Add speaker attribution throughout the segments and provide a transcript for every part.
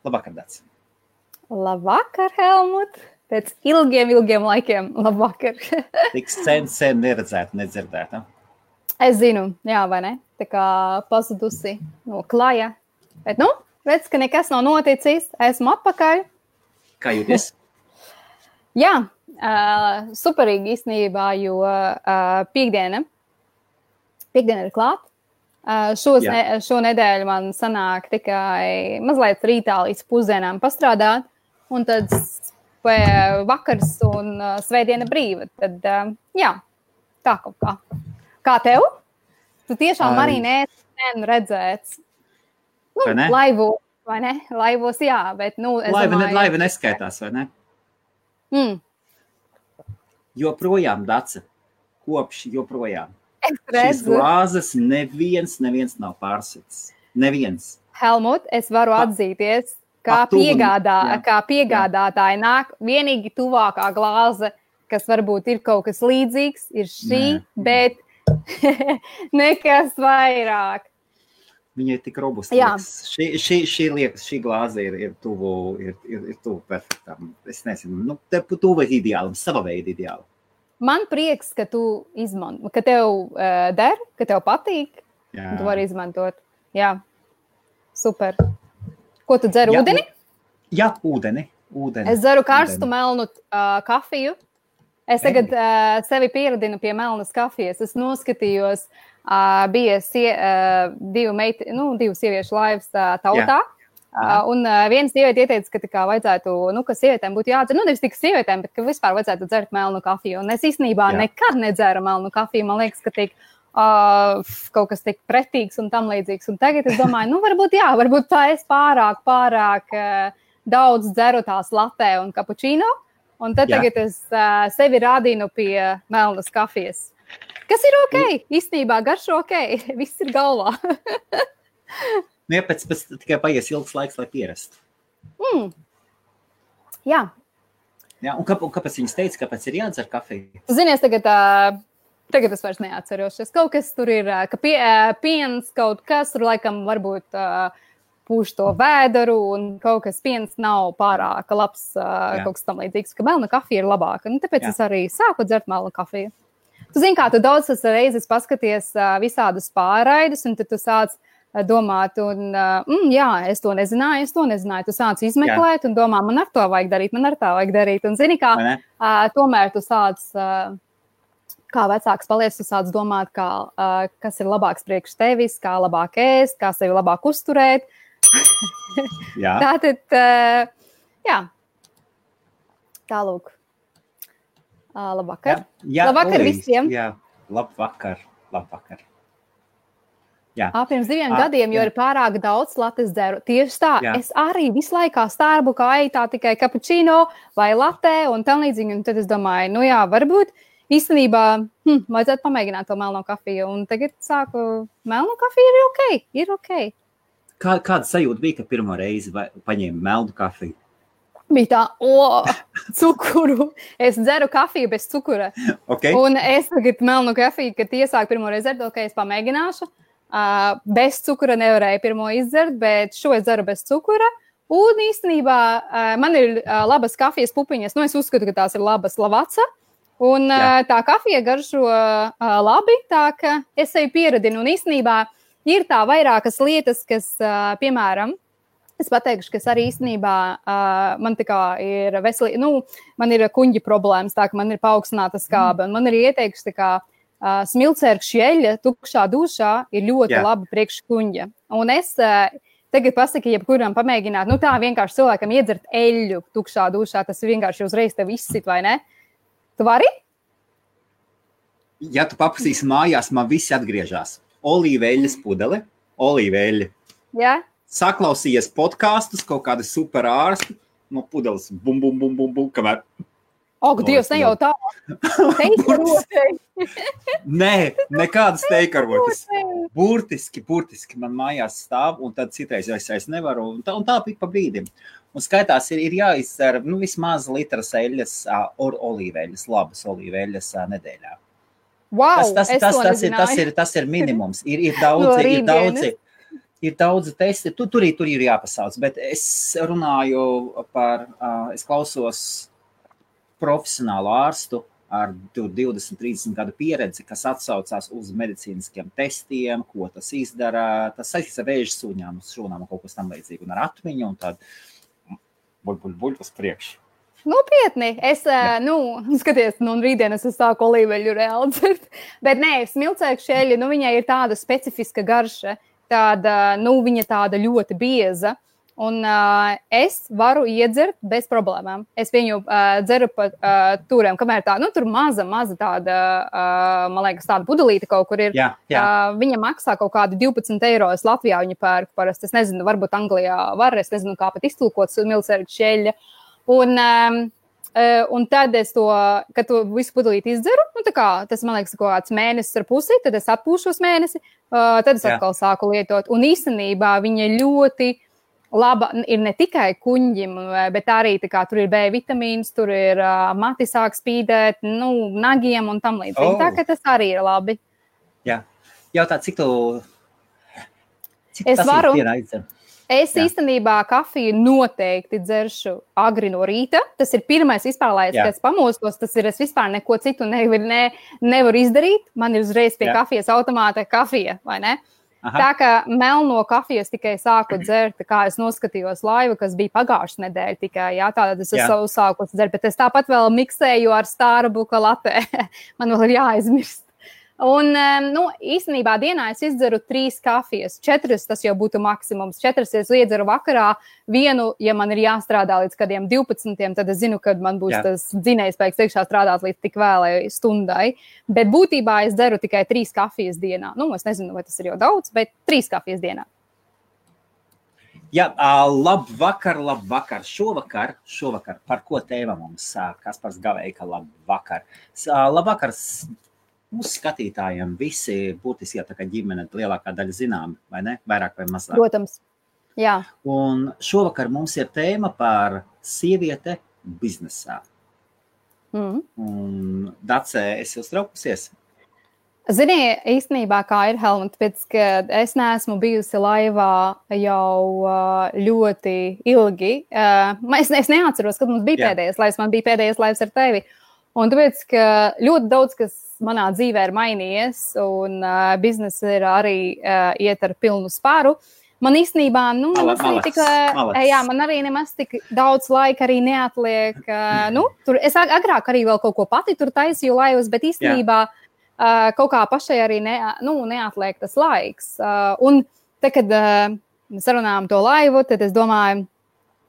Speaker 1: Labvakar, Dats.
Speaker 2: Labvakar, Helmut. Pēc ilgiem laikiem. Labvakar.
Speaker 1: Tik sen neredzēta, nedzirdēta.
Speaker 2: Es zinu, jā, vai ne? Tā kā pazudusi no klaja. Bet, redz, ka nekas nav noticis. Esmu atpakaļ.
Speaker 1: Kā jūties?
Speaker 2: Jā, superīgi īstenībā, jo piekdiena ir klāt. Šo nedēļu man sanāk tikai mazliet rītā līdz pusdienām pastrādāt, un tad vakars un svētdiena brīva. Tad, jā, tā kaut kā. Kā tev? Tu tiešām arī neesi redzēts. Laivos, vai ne? Laivos, jā, bet, es domāju...
Speaker 1: Laiva neskaitās, vai ne? Joprojām, Dace, kopš joprojām. Šīs glāzes neviens nav pārsits. Neviens.
Speaker 2: Helmut, es varu atzīties, kā piegādātāji nāk vienīgi tuvākā glāze, kas varbūt ir kaut kas līdzīgs, ir šī, bet nekas vairāk.
Speaker 1: Viņa ir tik robusta. Šī glāze ir tuvu perfektam. Es nezinu, tuvu ideālam, sava veida ideālam.
Speaker 2: Man prieks, ka tu izmanto, ka tev der, ka tev patīk, un tu vari izmantot. Jā, super. Ko tu dzer, ūdeni?
Speaker 1: Jā, ūdeni.
Speaker 2: Es dzeru karstu melnu kafiju. Es tagad sevi pieradinu pie melnas kafijas. Es noskatījos, bija divu sieviešu laivas tautā. Un viena sieviete ieteica, ka vajadzētu, ka sievietēm būtu jādzer, nevis tikai sievietēm, bet ka vispār vajadzētu dzert melnu kafiju. Un es īstenībā nekad nedzeru melnu kafiju. Man liekas, ka kaut kas tik pretīgs un tam līdzīgs. Un tagad es domāju, varbūt tā es pārāk daudz dzeru tās latē un kapučīno. Un tad tagad es sevi rādīnu pie melnas kafijas. Kas ir ok? Īstenībā garšo ok. Viss ir galvā.
Speaker 1: Jā, pēc tikai paies ilgs laiks, lai pierastu.
Speaker 2: Jā.
Speaker 1: Jā, un kāpēc viņas teica, kāpēc ir jādzer kafiju?
Speaker 2: Zinies, tagad es vairs neatceros. Kaut kas tur ir, ka piens, kaut kas tur laikam varbūt pūš to vēderu, un kaut kas piens nav pārāk labs, kaut kas tam līdzīgs, ka melna kafija ir labāka. Tāpēc es arī sāku dzert melnu kafiju. Tu zini, kā tu daudz reizes paskaties visādus pārraidus, un tad tu sāc domāt, un es to nezināju. Tu sāc izmeklēt un domā, man ar to vajag darīt. Un zini, kā tomēr tu sāc, kā vecāks paliec, tu sāc domāt, kas ir labāks priekš tevis, kā labāk ēst, kā sevi labāk uzturēt. Tātad, tālūk. Labvakar. Labvakar visiem.
Speaker 1: Jā, labvakar.
Speaker 2: Pirms 2 gadiem, jo ir pārāk daudz lates dzeru. Tieši tā, es arī visu laikā Starbuckā eju tā tikai kapučīno vai latē un tam līdzīgi. Un tad es domāju, varbūt īstenībā vajadzētu pamēģināt to melno kafiju. Un tagad sāku, melno kafija ir ok.
Speaker 1: Kāda sajūta bija, ka pirmo reizi paņēma melnu kafiju?
Speaker 2: Bija tā, cukuru. Es dzeru kafiju bez cukura.
Speaker 1: Okay.
Speaker 2: Un es tagad melnu kafiju, kad iesāku pirmo reizi dzert, es pamēģināšu. Bez cukura nevarēju pirmo izdzert, bet šo es dzeru bez cukura. Un īstenībā man ir labas kafijas pupiņas. Es uzskatu, ka tās ir labas lavaca. Un tā kafija garšo labi, tā ka es sevi pieradinu. Un īstenībā ir tā vairākas lietas, kas, piemēram, es pateikšu, kas arī īstenībā man tā kā ir man ir kuņģi problēmas, tā ka man ir paaugstināta skābe. Un man ir ieteikts, tā kā smilcērkšķi eļļa tukšā dušā ir ļoti laba priekš kuņģa. Un es tagad pasaku, jebkuram pamēģināt, tā vienkārši cilvēkam iedzert eļļu tukšā dušā, tas vienkārši uzreiz tev izsit, vai ne? Tu vari?
Speaker 1: Ja tu paprasīsi mājās, man visi atgriežās. Olīveļas pudele, olīveļa.
Speaker 2: Jā.
Speaker 1: Saklausījies podkastus, kaut kādi super ārsti, no pudeles bum, kamēr.
Speaker 2: Dievs, ne jau tā. Teikarotei.
Speaker 1: Nē, nekādas teikarotei. Burtiski man mājās stāv, un tad citreiz es nevaru, un tā pik pa brīdim. Un skaitās ir jāizdzer, vismaz litras eļļas, olīveļas, labas olīveļas nedēļā.
Speaker 2: Wow,
Speaker 1: tas ir minimums. Ir daudzi. Ir daudzi testi, tur ir jāpasauc, bet es runāju par, es klausos profesionālu ārstu ar 20-30 gadu pieredzi, kas atsaucās uz medicīniskiem testiem, ko tas izdara. Tas saistīts ar vēža suņām, uz šūnām un kaut kas tam līdzīgi, un ar atmiņu, un tad buļ uz priekšu.
Speaker 2: Nopietni. Es, skaties, rītdien es sāku olīveļu reāli dzert. Bet nē, smilcēku šeļi, viņai ir tāda specifiska garša, tāda, viņa tāda ļoti bieza. Un es varu iedzert bez problēmām. Es viņu dzeru pa turiem, kamēr tā, tur maza tāda, man liekas, tāda pudelīte kaut kur ir.
Speaker 1: Jā.
Speaker 2: Viņa maksā kaut kādi 12 eiro. Es Latvijā viņu pērku parasti. Es nezinu, varbūt Anglijā var, es nezinu, kā pat iztulkot smilcēku šeļa. Un tad es to, kad to visu pudelīti izdzeru, tas, man liekas, kaut kāds mēnesis ar pusi, tad es atpūšos mēnesi, tad es atkal sāku lietot. Un īstenībā viņa ļoti laba ir ne tikai kuņģim, bet arī tur ir B vitamīns, tur ir mati sāk spīdēt, nagiem un tam līdzīgi. Tā, ka tas arī ir labi.
Speaker 1: Jā. Jautā, cik
Speaker 2: es
Speaker 1: tas
Speaker 2: varu.
Speaker 1: Ir dienā izdzer?
Speaker 2: Es īstenībā kafiju noteikti dzeršu agri no rīta. Tas ir pirmais vispār, lai es pamostos. Tas ir, es vispār neko citu nevaru izdarīt. Man ir uzreiz pie kafijas automāta kafija, vai ne? Aha. Tā kā melno kafijas tikai sāku dzert, kā es noskatījos laivu, kas bija pagājušas nedēļa tikai, tātad es savu sāku dzert, bet es tāpat vēl miksēju ar Starbucks latte. Man vēl ir jāaizmirst. Un, īstenībā dienā es izdzeru 3 kafijas. 4 tas jau būtu maksimums. 4 es iedzeru vakarā. Vienu, ja man ir jāstrādā līdz kādiem 12, tad es zinu, kad man būs tas dzinējspēks iekšā strādāt līdz tik vēlai stundai. Bet būtībā es dzeru tikai 3 kafijas dienā. Es nezinu, vai tas ir jau daudz, bet 3 kafijas dienā.
Speaker 1: Jā, labvakar. Šovakar, par ko tēma mums? Kaspars Gaveika, labvakar. Labvakar. Mūsu skatītājiem visi būtiski, tā kā ģimene lielākā daļa zinām, vai ne? Vairāk vai mazāk.
Speaker 2: Protams, jā.
Speaker 1: Un šovakar mums ir tēma par sieviete biznesā. Un Dace, esi uztraukusies?
Speaker 2: Zini, īstenībā kā ir, Helmut, pēc, ka es neesmu bijusi laivā jau ļoti ilgi. Es neatceros, kad mums bija pēdējais laivs, man bija pēdējais laivs ar tevi. Un tāpēc, ka ļoti daudz, kas manā dzīvē ir mainījies, un biznesa ir arī iet ar pilnu spāru. Man īstenībā, man arī nemaz tik daudz laika arī neatliek. Es agrāk arī vēl kaut ko pati tur taisīju laivas, bet īstenībā kaut kā pašai arī neatliek tas laiks. Un te, kad sarunājām to laivu, tad es domāju,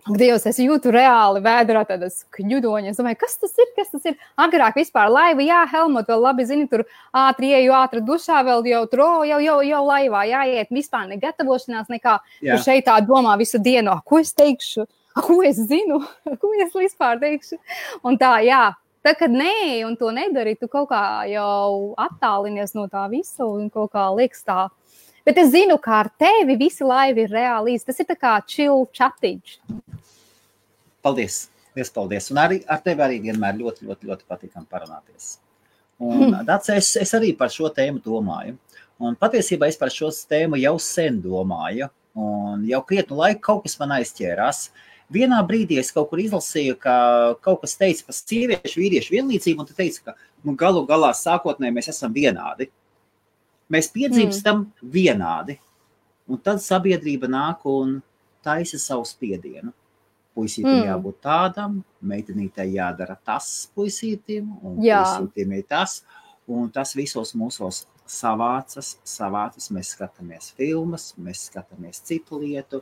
Speaker 2: Dievs, es jūtu reāli vēdrā tādas kņudoņas. Es domāju, kas tas ir? Agrāk vispār laiva, jā, Helmut, vēl labi zini, tur ātri dušā, vēl jau laivā jāiet, vispār ne gatavošanās nekā. Tur šeit tā domā visu dienu, ko es teikšu, ko es zinu, ko es vispār teikšu. Un tā, jā, tā, kad nē, un to nedari, tu kaut kā jau attālinies no tā visa un kaut kā liekas tā. Bet es zinu, kā ar tevi visi laivi ir reāli īsti. Tas ir tā kā chill chatiņš.
Speaker 1: Paldies. Un arī ar tevi arī vienmēr ļoti patīkam parunāties. Un Dace, es arī par šo tēmu domāju. Un patiesībā es par šo tēmu jau sen domāju. Un jau krietnu laiku kaut kas man aizķērās. Vienā brīdī es kaut kur izlasīju, ka kaut kas teica par sieviešu, vīriešu vienlīdzību, un tu teici, ka galu galā sākotnēji mēs esam vienādi. Mēs piedzimstam vienādi, un tad sabiedrība nāk un taisa savu spiedienu. Puisītim jābūt tādam, meitenītei jādara tas puisītim, un puisītim ir tas, un tas visos mūsos savācas, mēs skatāmies filmas, mēs skatāmies citu lietu,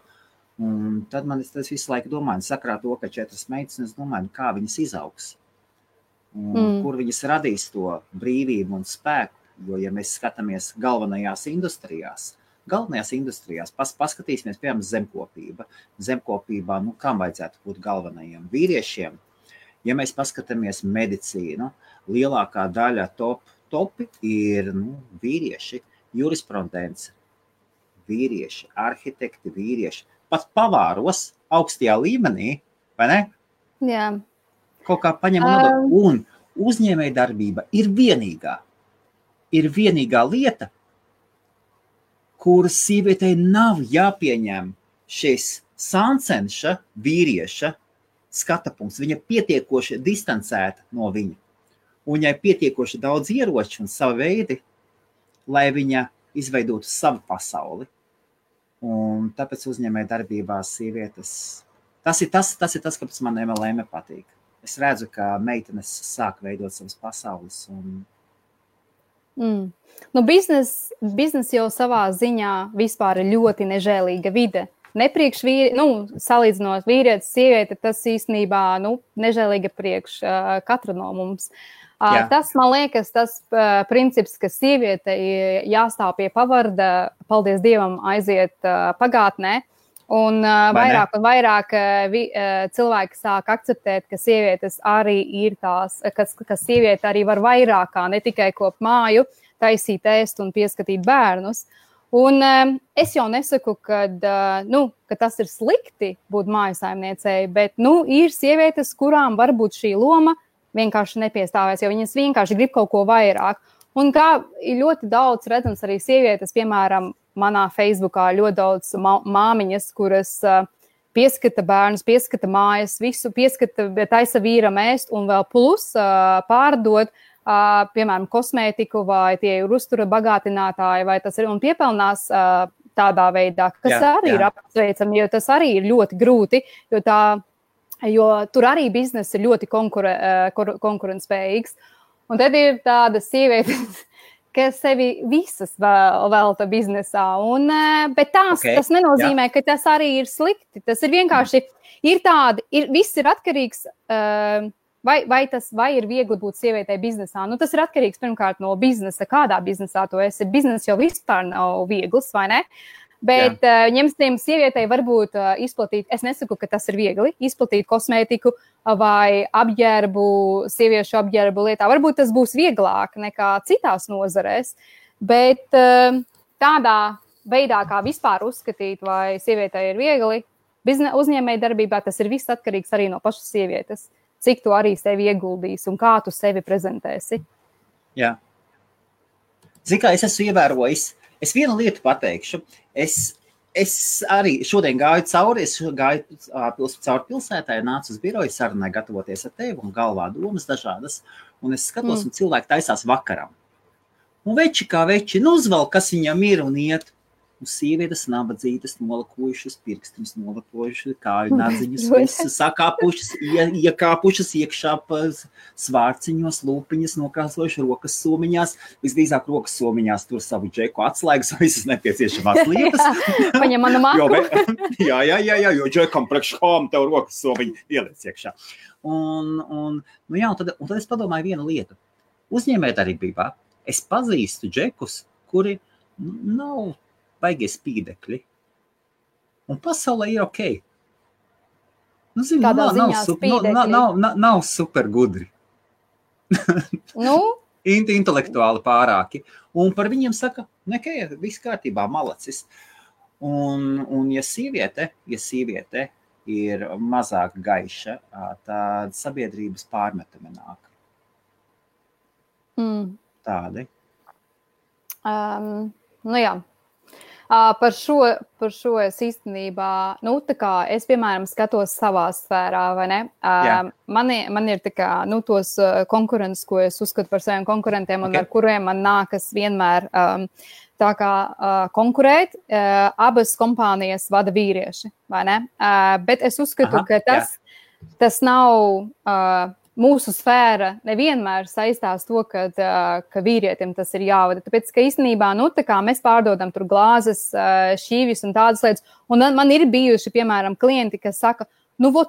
Speaker 1: un tad man es visu laiku domāju, sakrā to, ka 4 meitenes, domāju, kā viņas izaugs, un kur viņas radīs to brīvību un spēku. Jo, ja mēs skatāmies galvenajās industrijās, paskatīsimies, piemēram, zemkopībā, kam vajadzētu būt galvenajiem vīriešiem. Ja mēs paskatāmies medicīnu, lielākā daļa topi ir vīrieši, jurisprudence, vīrieši, arhitekti, vīrieši, pat pavāros augstajā līmenī, vai ne?
Speaker 2: Jā.
Speaker 1: Kaut kā paņem un uzņēmēja darbība ir vienīgā lieta, kur sievietei nav jāpieņem šis sāncenša vīrieša skata punkts. Viņa pietiekoši distancēta no viņa. Un viņai pietiekoši daudz ieroču un savu veidi, lai viņa izveidotu savu pasauli. Un tāpēc uzņēmēja darbībā sievietes. Tas ir tas, kāpēc man MLM patīk. Es redzu, ka meitenes sāk veidot savas pasaules.
Speaker 2: Nu, biznes jau savā ziņā vispār ir ļoti nežēlīga vide. Nepriekš salīdzinot vīrietis, sieviete, tas īstenībā nežēlīga priekš katra no mums. Tas, man liekas, tas princips, ka sieviete jāstāv pie pavarda, paldies Dievam, aiziet pagātnē. Un vairāk un vairāk cilvēki sāk akceptēt, ka sievietes arī ir tās, ka sieviete arī var vairāk kā ne tikai kopt māju, taisīt ēst un pieskatīt bērnus. Un es jau nesaku, ka tas ir slikti būt mājasaimniecei, bet ir sievietes, kurām varbūt šī loma vienkārši nepiestāvēs, jo viņas vienkārši grib kaut ko vairāk. Un kā ir ļoti daudz redzams arī sievietes, piemēram, manā Facebookā ļoti daudz māmiņas, kuras pieskata bērnus, pieskata mājas, visu pieskata, taisa vīram ēst un vēl plus pārdod, piemēram, kosmētiku vai tie ir uztura bagātinātāji, vai tas ir un piepelnās tādā veidā, kas arī ir apsveicami, jo tas arī ir ļoti grūti, jo tur arī bizness ir ļoti konkurentspējīgs. Un tad ir tāda sievietes, kas sevi visas velta biznesā. Bet tas nenozīmē, ka tas arī ir slikti. Tas ir vienkārši, viss ir atkarīgs, vai ir viegli būt sievietei biznesā. Tas ir atkarīgs pirmkārt no biznesa, kādā biznesā tu esi. Biznes jau vispār nav viegls, vai ne? Bet ņemsim sievietei varbūt izplatīt, es nesaku, ka tas ir viegli, izplatīt kosmētiku vai sieviešu apģērbu lietā. Varbūt tas būs vieglāk nekā citās nozarēs, bet tādā veidā, kā vispār uzskatīt, vai sievietei ir viegli, uzņēmēja darbībā tas ir viss atkarīgs arī no pašas sievietes, cik tu arī sevi ieguldīsi un kā tu sevi prezentēsi.
Speaker 1: Jā. Zini, kā es esmu ievērojis, es vienu lietu pateikšu. Es arī šodien gāju cauri pilsētā, nācu uz biroju sarunai gatavoties ar tevi un galvā domas dažādas. Un es skatos, un cilvēki taisās vakaram. Un veči kā veči, uzvelk, kas viņam ir un iet. Un sievietes nabadzītas nolakojušas, pirkstiņas nolakojušas, kāju nadziņas, visas sakāpušas, iekāpušas iekšā svārciņos, lūpiņas nokrāsojuši rokas somiņās, visdrīzāk rokas somiņās tur savu džeku atslēgas, visas nepieciešamās lietas.
Speaker 2: Paņem manu māku.
Speaker 1: Jo džekam priekškām tev rokas somiņi ieliec iekšā. Un tad es padomāju vienu lietu. Uzņēmējdarbībā es pazīstu džekus, kuri nav baigie spīdekļi. Un pasaulē ir ok. Nav super gudri. Intelektuāli pārāki. Un par viņiem saka, viss kārtībā, malacis. Un ja sieviete ir mazāk gaiša, tad sabiedrības pārmetumi nāk. Tādi.
Speaker 2: Jā. Par šo es īstenībā, es, piemēram, skatos savā sfērā, vai ne? Man ir tos konkurences, ko es uzskatu par saviem konkurentiem un ar kuriem man nākas vienmēr konkurēt. Abas kompānijas vada vīrieši, vai ne? Bet es uzskatu, ka tas nav... Mūsu sfēra nevienmēr saistās to, ka vīrietim tas ir jāvada. Tāpēc, ka īstenībā, mēs pārdodam tur glāzes, šīvis un tādas lietas. Un man ir bijuši, piemēram, klienti, kas saka,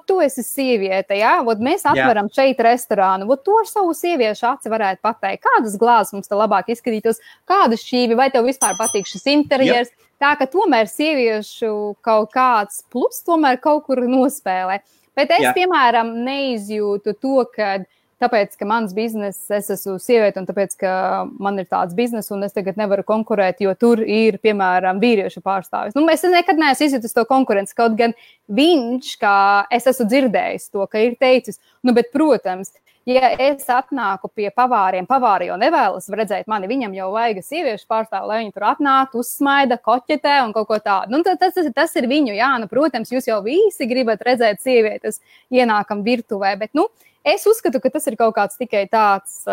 Speaker 2: tu esi sieviete, jā? Mēs atveram šeit restorānu. To ar savu sieviešu aci varētu pateikt. Kādas glāzes mums te labāk izskatītos? Kādas šīvi? Vai tev vispār patīk šis interjers? Tā, ka tomēr sieviešu kaut kāds plus tomēr kaut kur nospēlē. Bet es, piemēram, neizjūtu to, ka tāpēc, ka mans bizness, es esmu sieviete, un tāpēc, ka man ir tāds bizness, un es tagad nevaru konkurēt, jo tur ir, piemēram, vīriešu pārstāvis. Nu, es nekad neesmu izjutis to konkurenci, kaut gan viņš, kā es esmu dzirdējis to, ka ir teicis, nu, bet, protams, ja es atnāku pie pavāriem, pavāri jau nevēlas redzēt mani, viņam jau vajag sieviešu pārstāvu, lai viņi tur atnāk, uzsmaida, koķetē un kaut ko tādu. Nu, tas ir viņu, jā, nu, protams, jūs jau visi gribat redzēt sievietes ienākam virtuvē, bet, nu, es uzskatu, ka tas ir kaut kāds tikai tāds,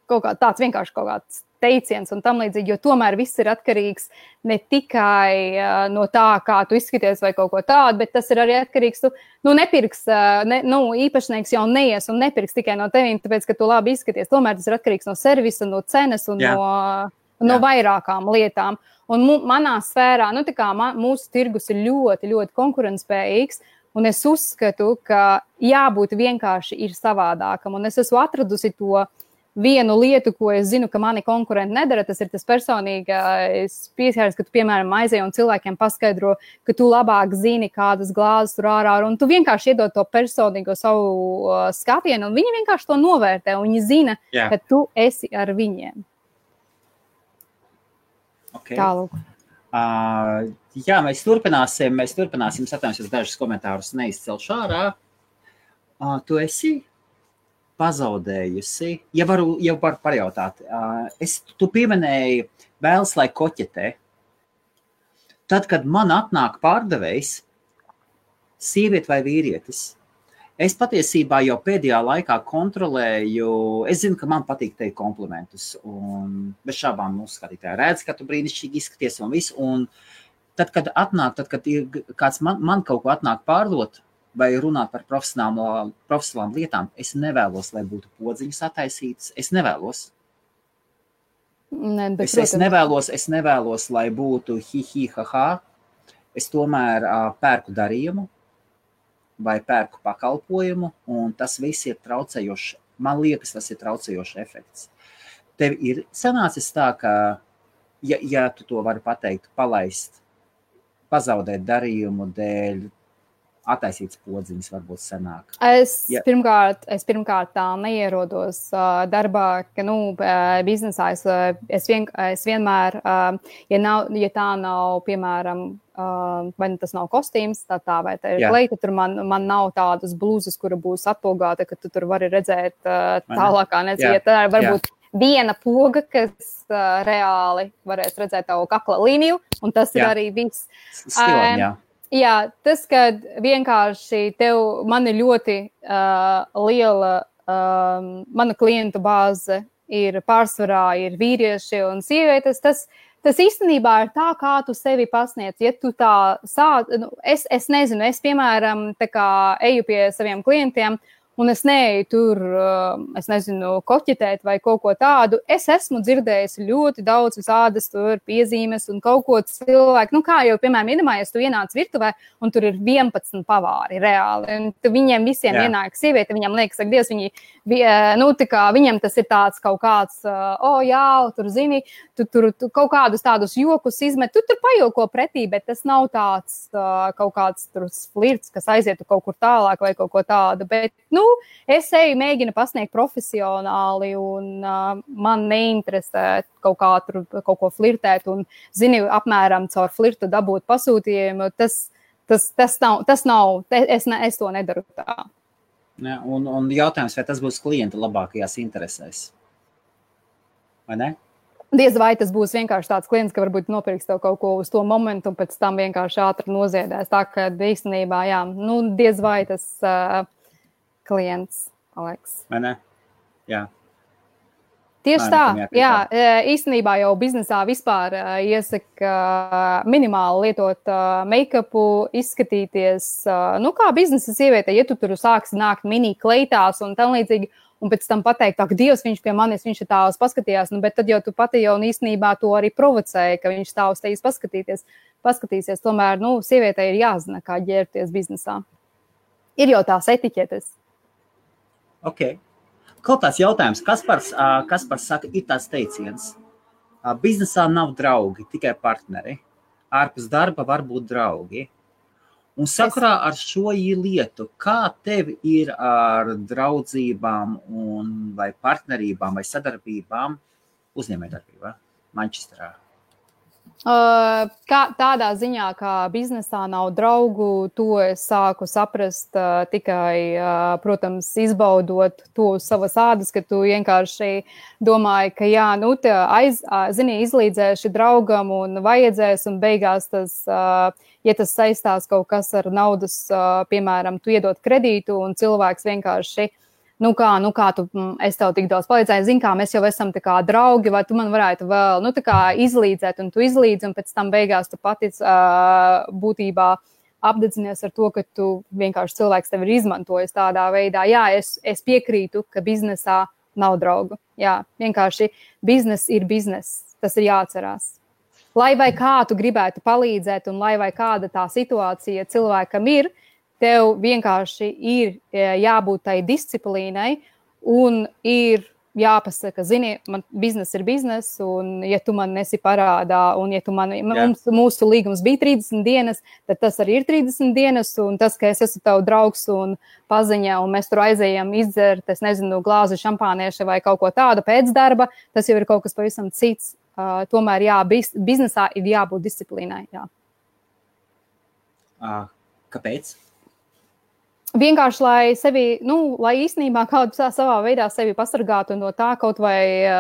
Speaker 2: vienkārši kaut kāds teiciens un tam līdzīgi, jo tomēr viss ir atkarīgs ne tikai no tā, kā tu izskaties vai kaut ko tādu, bet tas ir arī atkarīgs, tu nepirks, īpašnieks jau neies un nepirks tikai no tevīm, tāpēc, ka tu labi izskaties. Tomēr tas ir atkarīgs no servisa, no cenas un no vairākām lietām. Un manā sfērā, nu tā kā mūsu tirgus ir ļoti, ļoti konkurentspējīgs, un es uzskatu, ka jābūt vienkārši ir savādākam, un es esmu atradusi to vienu lietu, ko es zinu, ka mani konkurenti nedara, tas ir tas personīgais pieskārs, ka tu, piemēram, aizej un cilvēkiem paskaidro, ka tu labāk zini, kādas glāzes tur ārā, un tu vienkārši iedod to personīgo savu skatienu, un viņi vienkārši to novērtē, un viņi zina, ka tu esi ar viņiem.
Speaker 1: Okay.
Speaker 2: Tālūk.
Speaker 1: Jā, mēs turpināsim, atvainojos, dažus komentārus neizcelšu ārā. Tu esi pazaudējusi, ja varu pajautāt, tu pieminēji vēlas, lai koķetē. Tad, kad man atnāk pārdevējs, sieviete vai vīrietis, es patiesībā jau pēdējā laikā kontrolēju, es zinu, ka man patīk teikt komplimentus, un bez šābām skatītāji redz, ka tu brīnišķīgi izskaties un visu, un tad, kad kāds man kaut ko atnāk pārdot, vai runāt par profesionālām lietām, es nevēlos, lai būtu podziņas attaisītas. Es nevēlos. Es nevēlos, lai būtu ha. Es tomēr pērku darījumu vai pērku pakalpojumu, un tas viss ir traucējošs. Man liekas, tas ir traucējošs efekts. Tev ir sanācis tā, ka, ja tu to vari pateikt, palaist, pazaudēt darījumu dēļ, attaisīts podziņas varbūt sanāk.
Speaker 2: Es pirmkārt tā neierodos darbā, ka, biznesā es vienmēr, ja tā nav, piemēram, vai tas nav kostīms, tā vai tā ir kleita, tur man nav tādas blūzas, kura būs atpogāta, ka tu tur vari redzēt tālākā, ja tā ir varbūt viena poga, kas reāli varēs redzēt tavu kakla līniju, un tas ir arī viss.
Speaker 1: Stilam,
Speaker 2: Jā, tas, kad vienkārši man ir ļoti liela, mana klientu bāze ir pārsvarā, ir vīrieši un sievietes, tas īstenībā ir tā, kā tu sevi pasniedz. Ja tu tā es nezinu, es, piemēram, tā kā eju pie saviem klientiem, un es neeju tur, es nezinu, koķetēt vai kaut ko tādu. Es esmu dzirdējusi ļoti daudz visādas tur piezīmes un kaut ko cilvēku. Kā jau, piemēram, iedomājies, tu ienāc virtuvē un tur ir 11 pavāri reāli. Un viņiem visiem ienāk sieviete, viņam liekas, ak, Dievs, viņam tas ir tāds kaut kāds, tur zini, tu kaut kādus tādus jokus izmet, tu tur pajoko pretī, bet tas nav tāds kaut kāds tur flirts, kas aizietu kaut kur tālāk vai kaut ko tādu. Bet, es mēģinu pasniegt profesionāli un man neinteresē kaut ko flirtēt un, zini, apmēram caur flirtu dabūt pasūtījumu. Tas nav, es to nedaru tā.
Speaker 1: Ja, un jautājums, vai tas būs klienta labākajās interesēs? Vai ne?
Speaker 2: Diez vai tas būs vienkārši tāds klients, ka varbūt nopirks tev kaut ko uz to momentu un pēc tam vienkārši ātri noziedēs. Tā, ka īstenībā, diez vai tas klients, Aleks.
Speaker 1: Vai ne? Jā.
Speaker 2: Tieši tā, īstenībā jau biznesā vispār iesaka minimāli lietot make-upu, izskatīties, kā biznesa sieviete, ja tu tur sāksi nākt mini kleitās un tam līdzīgi, un pēc tam pateikt, ak, Dievs, viņš pie manis, viņš ir tāls paskatījās, bet tad jau tu pati jau īstenībā to arī provocēji, ka viņš tā uz tevis paskatīsies. Tomēr, sievietei ir jāzina, kā ģērbties biznesā. Ir jau tās etiķetes.
Speaker 1: Ok. Kaut tāds jautājums, Kaspars saka, ir tāds teiciens. Biznesā nav draugi, tikai partneri. Ārpus darba var būt draugi. Un sakarā ar šo lietu, kā tev ir ar draudzībām vai partnerībām vai sadarbībām uzņēmējdarbībā Manchesterā?
Speaker 2: Tādā ziņā, kā biznesā nav draugu, to es sāku saprast tikai, protams, izbaudot to uz savas ādas, ka tu vienkārši domāji, ka jā, nu, izlīdzēši draugam un vajadzēs, un beigās tas, ja tas saistās kaut kas ar naudas, piemēram, tu iedod kredītu, un cilvēks vienkārši nu kā tu, es tev tik daudz palīdzēju, zini, kā mēs jau esam tā kā draugi, vai tu man varētu vēl, nu tā kā izlīdzēt, un tu izlīdzi, un pēc tam beigās tu pati būtībā apdedzinies ar to, ka tu vienkārši cilvēks tev ir izmantojis tādā veidā. Jā, es piekrītu, ka biznesā nav draugu. Jā, vienkārši biznes ir biznes. Tas ir jāatcerās. Lai vai kā tu gribētu palīdzēt, un lai vai kāda tā situācija cilvēkam ir, tev vienkārši ir jābūt tai disciplīnai un ir jāpasaka, zini, man biznes ir biznes, un ja tu man nesi parādā, un ja tu mūsu līgums bija 30 dienas, tad tas arī ir 30 dienas, un tas, ka es esmu tev draugs un paziņa, un mēs tur aizējam izdzert, es nezinu, glāzi šampānieša vai kaut ko tādu pēc darba, tas jau ir kaut kas pavisam cits. Tomēr, jā, biznesā ir jābūt disciplīnai, jā.
Speaker 1: Kāpēc?
Speaker 2: Vienkārši, lai sevi, lai īstenībā kādu savā veidā sevi pasargātu no tā kaut vai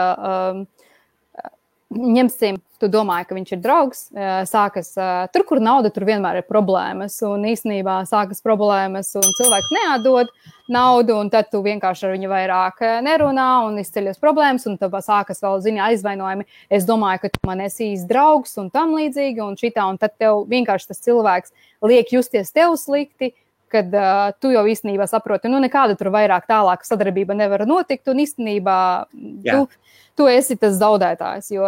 Speaker 2: ņemsim, tu domāji, ka viņš ir draugs, sākas, tur, kur nauda, tur vienmēr ir problēmas, un īstenībā sākas problēmas, un cilvēks neatdod naudu, un tad tu vienkārši ar viņu vairāk nerunā, un izceļas problēmas, un tad sākas vēl, aizvainojumi. Es domāju, ka tu man esi īsts draugs, un tam līdzīgi, un šitā, un tad tev vienkārši tas cilvēks liek justies tev slikti, kad tu jau īstenībā saproti, nekāda tur vairāk tālāka sadarbība nevar notikt, un īstenībā tu esi tas zaudētājs, jo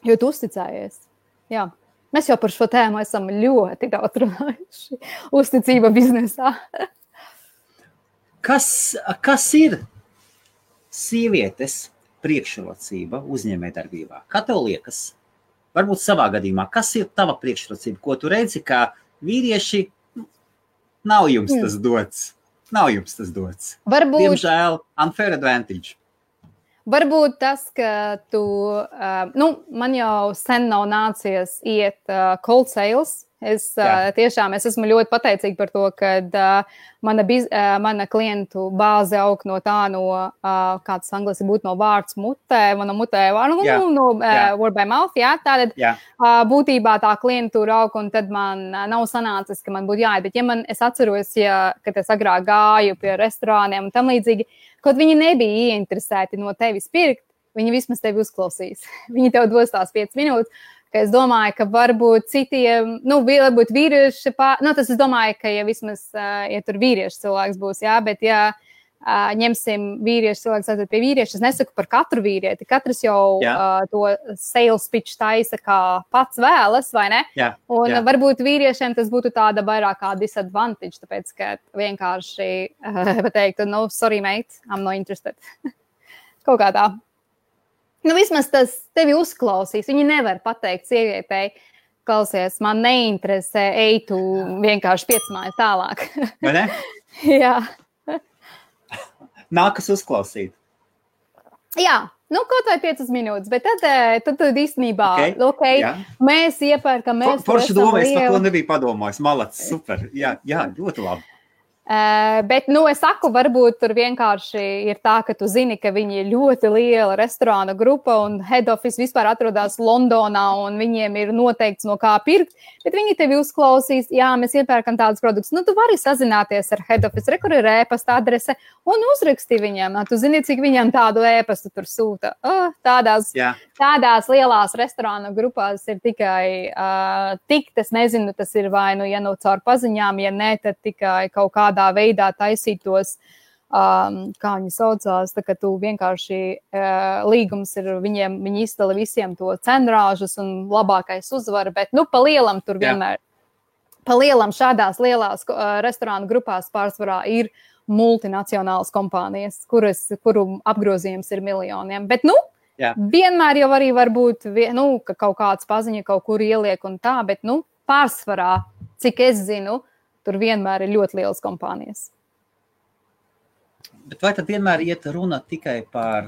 Speaker 2: tu uzticējies. Jā. Mēs jau par šo tēmu esam ļoti daudz runājuši. Uzticība biznesā.
Speaker 1: Kas ir sievietes priekšrocība uzņēmējdarbībā? Kā tev liekas? Varbūt savā gadījumā, kas ir tava priekšrocība, ko tu redzi, kā vīrieši nav jums tas dots. Nav jums tas dots.
Speaker 2: Varbūt,
Speaker 1: diemžēl, unfair advantage.
Speaker 2: Varbūt tas, ka tu, man jau sen nav nācies iet cold sales. Es esmu ļoti pateicīga par to, ka mana klientu bāze aug no tā, kāds angliski būtu no vārds mutē, mana mutē word by mouth, tātad būtībā tā klientūra aug, un tad man nav sanācis, ka man būtu jāiet, bet es atceros, kad es agrāk gāju pie restorāniem un tam līdzīgi, kaut viņi nebija ieinteresēti no tevis pirkt, viņi vismaz tevi uzklausīs. Viņi tev dos tās 5 minūtes. Ka es domāju, ka varbūt citiem, varbūt vīrieši, tas es domāju, ka ja vismaz, ja tur vīrieši cilvēks būs, bet ja ņemsim vīrieši cilvēks aiziet pie vīrieša, es nesaku par katru vīrieti, katrs jau to sales pitch taisa, kā pats vēlas, vai ne? Un varbūt vīriešiem tas būtu tāda vairāk kā disadvantage, tāpēc, ka vienkārši pateiktu, sorry mate, I'm not interested. Kaut kā tā. Vismaz tas tevi uzklausīs. Viņi nevar pateikt sievietei, klausies, man neinteresē, ej tu vienkārši 5 mājas tālāk.
Speaker 1: Vai ne?
Speaker 2: Jā.
Speaker 1: Nākas uzklausīt.
Speaker 2: Jā, kaut vai 5 minūtes, bet tad īstenībā, mēs iepērkam, mēs
Speaker 1: Forši doma, es par to nebiju padomājis. Malacis, super. Jā, ļoti labi.
Speaker 2: Bet, es saku, varbūt tur vienkārši ir tā, ka tu zini, ka viņi ir ļoti liela restorāna grupa un head office vispār atrodas Londonā un viņiem ir noteikts no kā pirkt, bet viņi tevi uzklausīs, jā, mēs iepērkam tādus produktus. Tu vari sazināties ar head office, kur ir ēpasta adrese un uzraksti viņam. Tu zini, cik viņam tādu ēpastu tur sūta. Tādās lielās restorāna grupās ir tikai es nezinu, tas ir vai caur paziņām, ja ne, tad tikai kaut kādā veidā taisītos, kā viņi saucās, tā ka tu vienkārši līgums ir viņiem, viņi izdala visiem to cenrāžus un labākais uzvar, bet pa lielam tur vienmēr, pa lielam šādās lielās restorānu grupās pārsvarā ir multinacionālas kompānijas, kuru apgrozījums ir miljoniem, bet vienmēr jau arī var būt, ka kaut kāds paziņa kaut kur ieliek un tā, bet pārsvarā cik es zinu, tur vienmēr ir ļoti lielas kompānijas.
Speaker 1: Bet vai tad vienmēr iet runa tikai par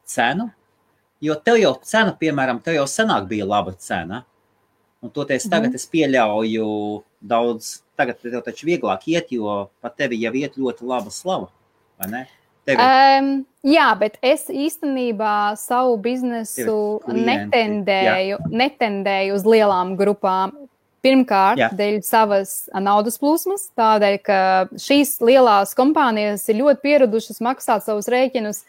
Speaker 1: cenu? Jo tev jau cena, piemēram, tev jau senāk bija laba cena. Un toties tagad es pieļauju daudz, tagad tev taču vieglāk iet, jo pat tevi jau iet ļoti laba slava, vai ne?
Speaker 2: Jā, bet es īstenībā savu biznesu netendēju uz lielām grupām. Pirmkārt, dēļ savas naudas plūsmas, tādēļ, ka šīs lielās kompānijas ir ļoti pieradušas maksāt savus rēķinus,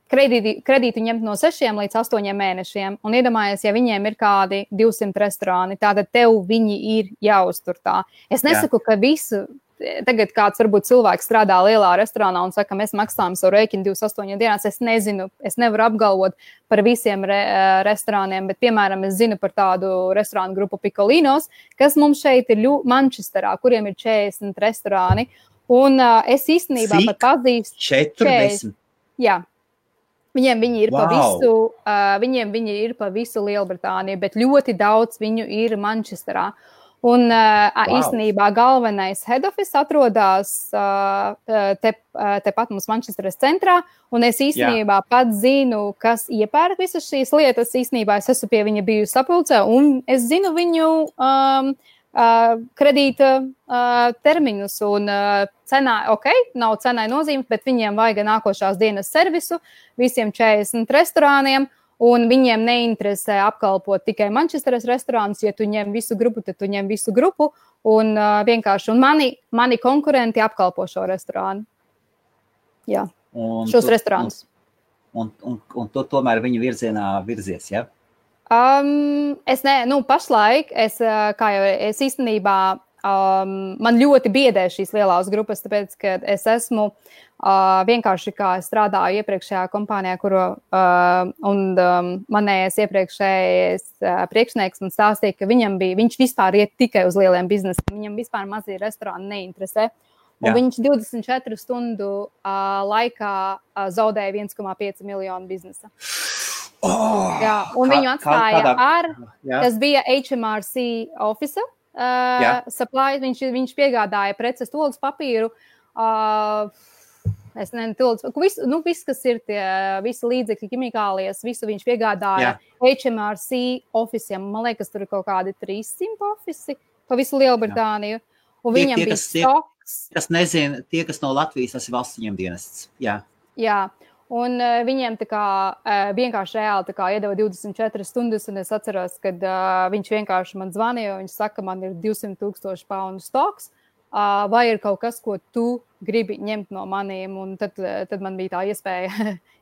Speaker 2: kredītu ņemt no 6 līdz 8 mēnešiem. Un iedomājies, ja viņiem ir kādi 200 restorāni, tātad tev viņi ir jāuztur tā. Es nesaku, ka visu... Tagad kāds varbūt cilvēks strādā lielā restorānā un saka, mēs maksājam savu rēķinu 28 dienās. Es nezinu, es nevaru apgalvot par visiem restorāniem, bet, piemēram, es zinu par tādu restorānu grupu Piccolinos, kas mums šeit ir Manchesterā, kuriem ir 40 restorāni. Un es īstenībā pat pazīstu
Speaker 1: 40.
Speaker 2: Jā. Viņiem viņi ir pa visu Lielbritāniju, bet ļoti daudz viņu ir Manchesterā. Un īstenībā galvenais head office atrodas tepat mums Manchesteras centrā, un es īstenībā pat zinu, kas iepērk visas šīs lietas. Īstenībā es esmu pie viņa bijusi sapulcē, un es zinu viņu kredīta termiņus, un cenā, nav cenai nozīmes, bet viņiem vajag nākošās dienas servisu visiem 40 restorāniem. Un viņiem neinteresē apkalpot tikai Manchesteras restorānus. Ja tu ņem visu grupu, tad tu ņem visu grupu. Un vienkārši mani konkurenti apkalpo šo restorānu. Jā, šos restorānus.
Speaker 1: Un tu tomēr viņu virzienā virzies, ja?
Speaker 2: Pašlaik es īstenībā man ļoti biedē šīs lielās grupas, tāpēc, ka es esmu vienkārši, kā es strādāju iepriekšējā kompānijā, manējais iepriekšējais priekšnieks man stāstīja, ka viņš vispār iet tikai uz lieliem biznesiem, viņam vispār mazie restorāni neinteresē. Un viņš 24 stundu laikā zaudēja 1,5 miljonu biznesa. Jā, un viņu atstāja tas bija HMRC officer, supply, viņš piegādāja preces, tolas papīru, viss, kas ir tie visi līdzekļi, ķimikālijas, visu viņš piegādāja HMRC ofisiem. Man liekas, tur ir kaut kādi 300 ofisi pa visu Lielbritāniju. Un viņam bija stoks.
Speaker 1: Kas nezina, tie, kas no Latvijas, tas ir valsts ņemdienests.
Speaker 2: Jā. Un viņiem vienkārši reāli iedeva 24 stundas, un es atceros, kad viņš vienkārši man zvanīja, un viņš saka, man ir 200,000 poundu stoks, vai ir kaut kas, ko tu gribi ņemt no maniem, un tad man bija tā iespēja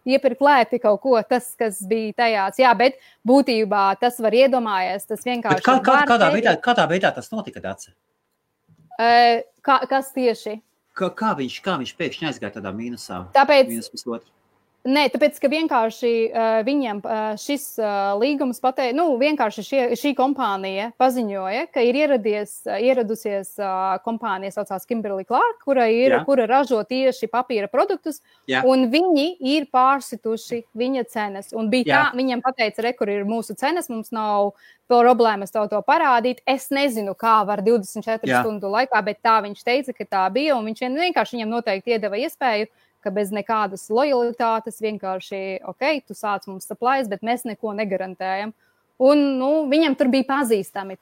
Speaker 2: iepirkt lēti kaut ko, tas, kas bija tajās. Jā, bet būtībā tas var iedomājies, tas vienkārši...
Speaker 1: Kādā veidā tas notika, Dace?
Speaker 2: Kas tieši?
Speaker 1: Kā viņš pēkšņi aizgāja tādā mīnusā?
Speaker 2: Tāpēc, ka vienkārši viņiem šis līgums pateica, vienkārši šī kompānija paziņoja, ka ir ieradusies kompānija saucās Kimberly Clark, kura ražo tieši papīra produktus, un viņi ir pārsituši viņa cenas. Un bija tā, viņiem pateica, kur ir mūsu cenas, mums nav problēmas to parādīt. Es nezinu, kā var 24 stundu laikā, bet tā viņš teica, ka tā bija, un viņš vienkārši viņiem noteikti iedeva iespēju, ka bez nekādas lojalitātes vienkārši, tu sāc mums supplies, bet mēs neko negarantējam. Un, viņam tur bija pazīstami,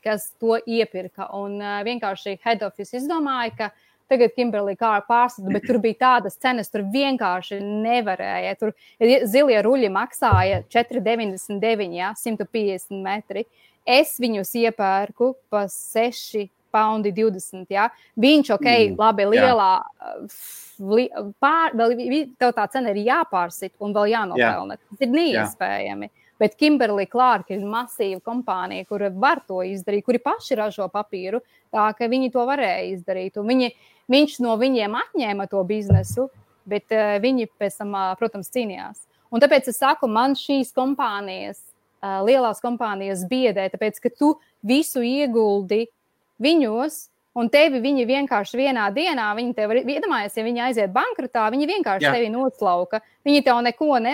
Speaker 2: kas to iepirka. Un vienkārši head office izdomāja, ka tagad Kimberly Clark pārsita, bet tur bija tādas cenas, tur vienkārši nevarēja. Tur zilie ruļi maksāja 4,99, 150 metri. Es viņus iepērku pa 6,20 paundi. Viņš, labi, lielā... tev tā cena ir jāpārsit un vēl jānopelna. Tas ir neiespējami. Bet Kimberly Clark ir masīva kompānija, kura var to izdarīt, kuri paši ražo papīru, tā ka viņi to varēja izdarīt. Un viņš no viņiem atņēma to biznesu, bet viņi pēc tam, protams, cīnījās. Un tāpēc es saku, man šīs kompānijas, lielās kompānijas biedē, tāpēc, ka tu visu ieguldi viņos, un tevi viņi vienkārši vienā dienā, viņi tev, iedomājies, ja viņi aiziet bankrotā, viņi vienkārši tevi noslauka. Viņi tev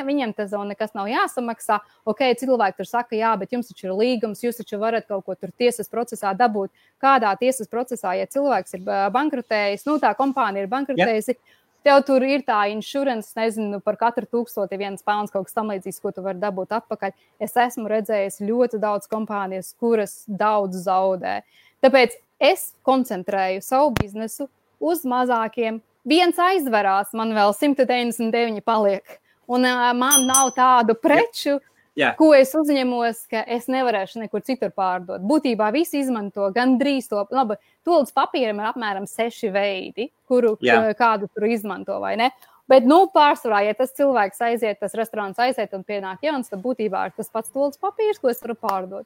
Speaker 2: viņiem tas nekas nav jāsamaksā. Ok, cilvēki tur saka, jā, bet jums taču ir līgums, jūs taču varat kaut ko tur tiesas procesā dabūt. Kādā tiesas procesā, ja cilvēks ir bankrotējis, tā kompānija ir bankrotējusi, tev tur ir tā insurance, nezinu, par katru 1001 pounds kaut kas tam līdzīgs, ko tu vari dabūt atpakaļ. Es esmu redzējis ļoti daudz kompānijas, kuras daudz zaudē. Tāpēc es koncentrēju savu biznesu uz mazākiem. Viens aizverās, man vēl 199 paliek. Un man nav tādu preču, ko es uzņemos, ka es nevarēšu nekur citur pārdot. Būtībā visi izmanto gandrīz to. Labi, toalettas papīram ir apmēram 6 veidi, kuru kādu tur izmanto, vai ne? Bet, pārsvarā, ja tas cilvēks aiziet, tas restorāns aiziet un pienāk jauns, tad būtībā ir tas pats toalettas papīrs, ko es varu pārdot.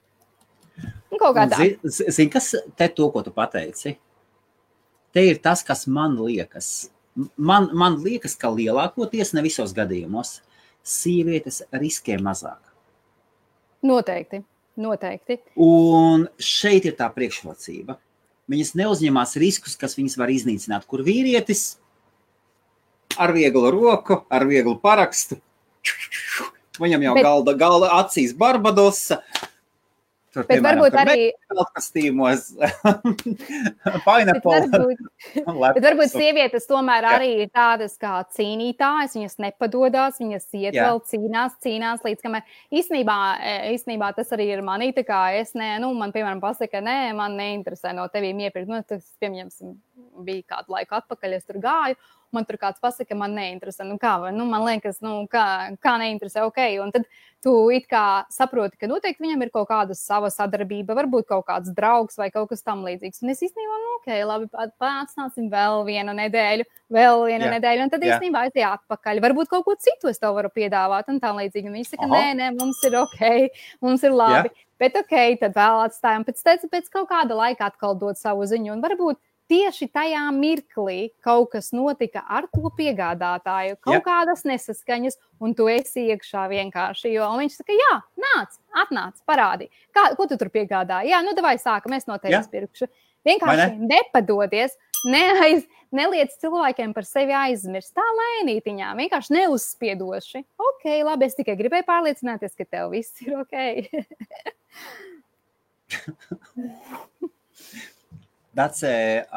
Speaker 2: Un kaut kā tā.
Speaker 1: Zini, kas te to, ko tu pateici? Te ir tas, kas man liekas. Man liekas, ka lielākoties, ne visos gadījumos, sievietes riskē mazāk.
Speaker 2: Noteikti.
Speaker 1: Un šeit ir tā priekšrocība. Viņas neuzņemās riskus, kas viņas var iznīcināt, kur vīrietis ar vieglu roku, ar vieglu parakstu. Viņam jau galda acīs Barbadosa. Tur,
Speaker 2: bet piemēram, varbūt arī
Speaker 1: kastīmos, pineapple.
Speaker 2: Bet varbūt sievietes tomēr arī ir tādas kā cīnītājas, viņas nepadodās, viņas iet vēl cīnās līdz kamēr. Īstenībā tas arī ir manī, tā kā es man piemēram pasaka, man neinteresē no tevīm iepirkt. Tas, piemēram, bija kādu laiku atpakaļ, es tur gāju. Man tur kāds pasaka, man neinteresē. Man liekas, kā neinteresē, ok. Un tad tu it kā saproti, ka noteikti viņam ir kaut kāda sava sadarbība, varbūt kaut kāds draugs vai kaut kas tam līdzīgs. Un es īstenībā, ok, labi, pārsnāsim vēl vienu nedēļu, un tad īstenībā aiziet atpakaļ. Varbūt kaut ko citu es tev varu piedāvāt un tā līdzīgi. Un viņi saka, nē, mums ir ok, mums ir labi. Bet ok, tad vēl atstājam. Pēc kaut kāda laika atkal dot savu ziņu un varbūt tieši tajā mirklī kaut kas notika ar to piegādātāju, kaut kādas nesaskaņas, un tu esi iekšā vienkārši, jo viņš saka, atnāc, parādi. Ko tu tur piegādāji? Davai sākam, es no tevis pirkšu. Vienkārši nepadodies, neliec cilvēkiem par sevi aizmirst, tā lēnītiņā, vienkārši neuzspiedoši. Ok, labi, es tikai gribēju pārliecināties, ka tev viss ir ok.
Speaker 1: Dacē,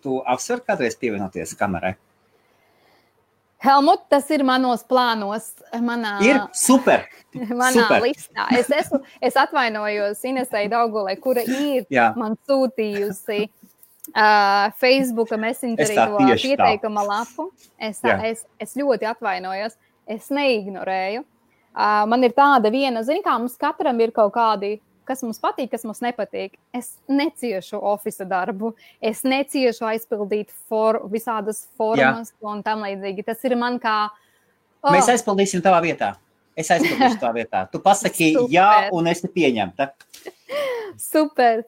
Speaker 1: tu apsver kādreiz pievienoties kamerai?
Speaker 2: Helmut, tas ir manos plānos.
Speaker 1: Ir super!
Speaker 2: Manā listā. Es atvainojos Inesei Daugulē, kura ir man sūtījusi Facebooka Messengerī to pieteikuma lapu. Es ļoti atvainojos. Es neignorēju. Man ir tāda viena, kā mums katram ir kaut kādi, kas mums patīk, kas mums nepatīk. Es neciešu ofisa darbu, es neciešu aizpildīt visādas formas un tam līdzīgi. Tas ir man kā...
Speaker 1: Mēs aizpildīsim tavā vietā. Es aizpildīšu tavā vietā. Tu pasaki jā un esi pieņemta.
Speaker 2: Super.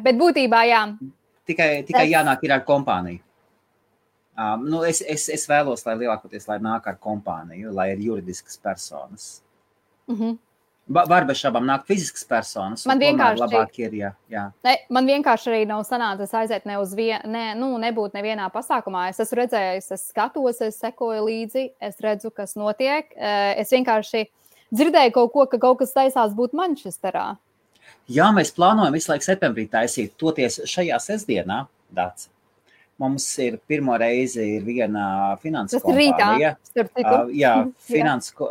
Speaker 2: Bet būtībā jā.
Speaker 1: Tikai jānāk ir ar kompāniju. Es vēlos, lai lielākoties, lai nāk ar kompāniju, lai ir juridiskas personas. Var bez šabām nākt fiziskas personas.
Speaker 2: Man vienkārši
Speaker 1: labāk ir,
Speaker 2: man vienkārši arī nav sanācis aiziet nebūt nevienā pasākumā. Es esmu redzējis, es skatos, es sekoju līdzi, es redzu, kas notiek. Es vienkārši dzirdēju kaut ko, ka kaut kas taisās būt Manchesterā.
Speaker 1: Jā, mēs plānojam visu laiku septembrī taisīt, toties šajā sestdienā, Dāc. Mums ir pirmo reizi ir viena finanses kompānija.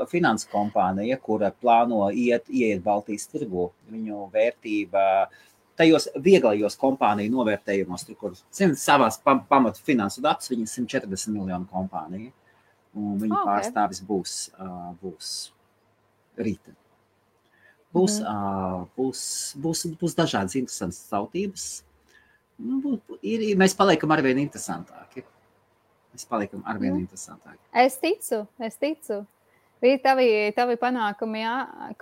Speaker 1: Finanses kompānija, kura plāno ieiet Baltijas tirgu. Viņu vērtība tajos vieglajos kompāniju novērtējumos, kur savās pamatu finansu datus, viņa 140 miljonu kompānija. Un viņa pārstāvis būs rīta. Būs dažādas interesantas tautības. Mēs paliekam arvien interesantāki.
Speaker 2: Es ticu. Tavi panākumi,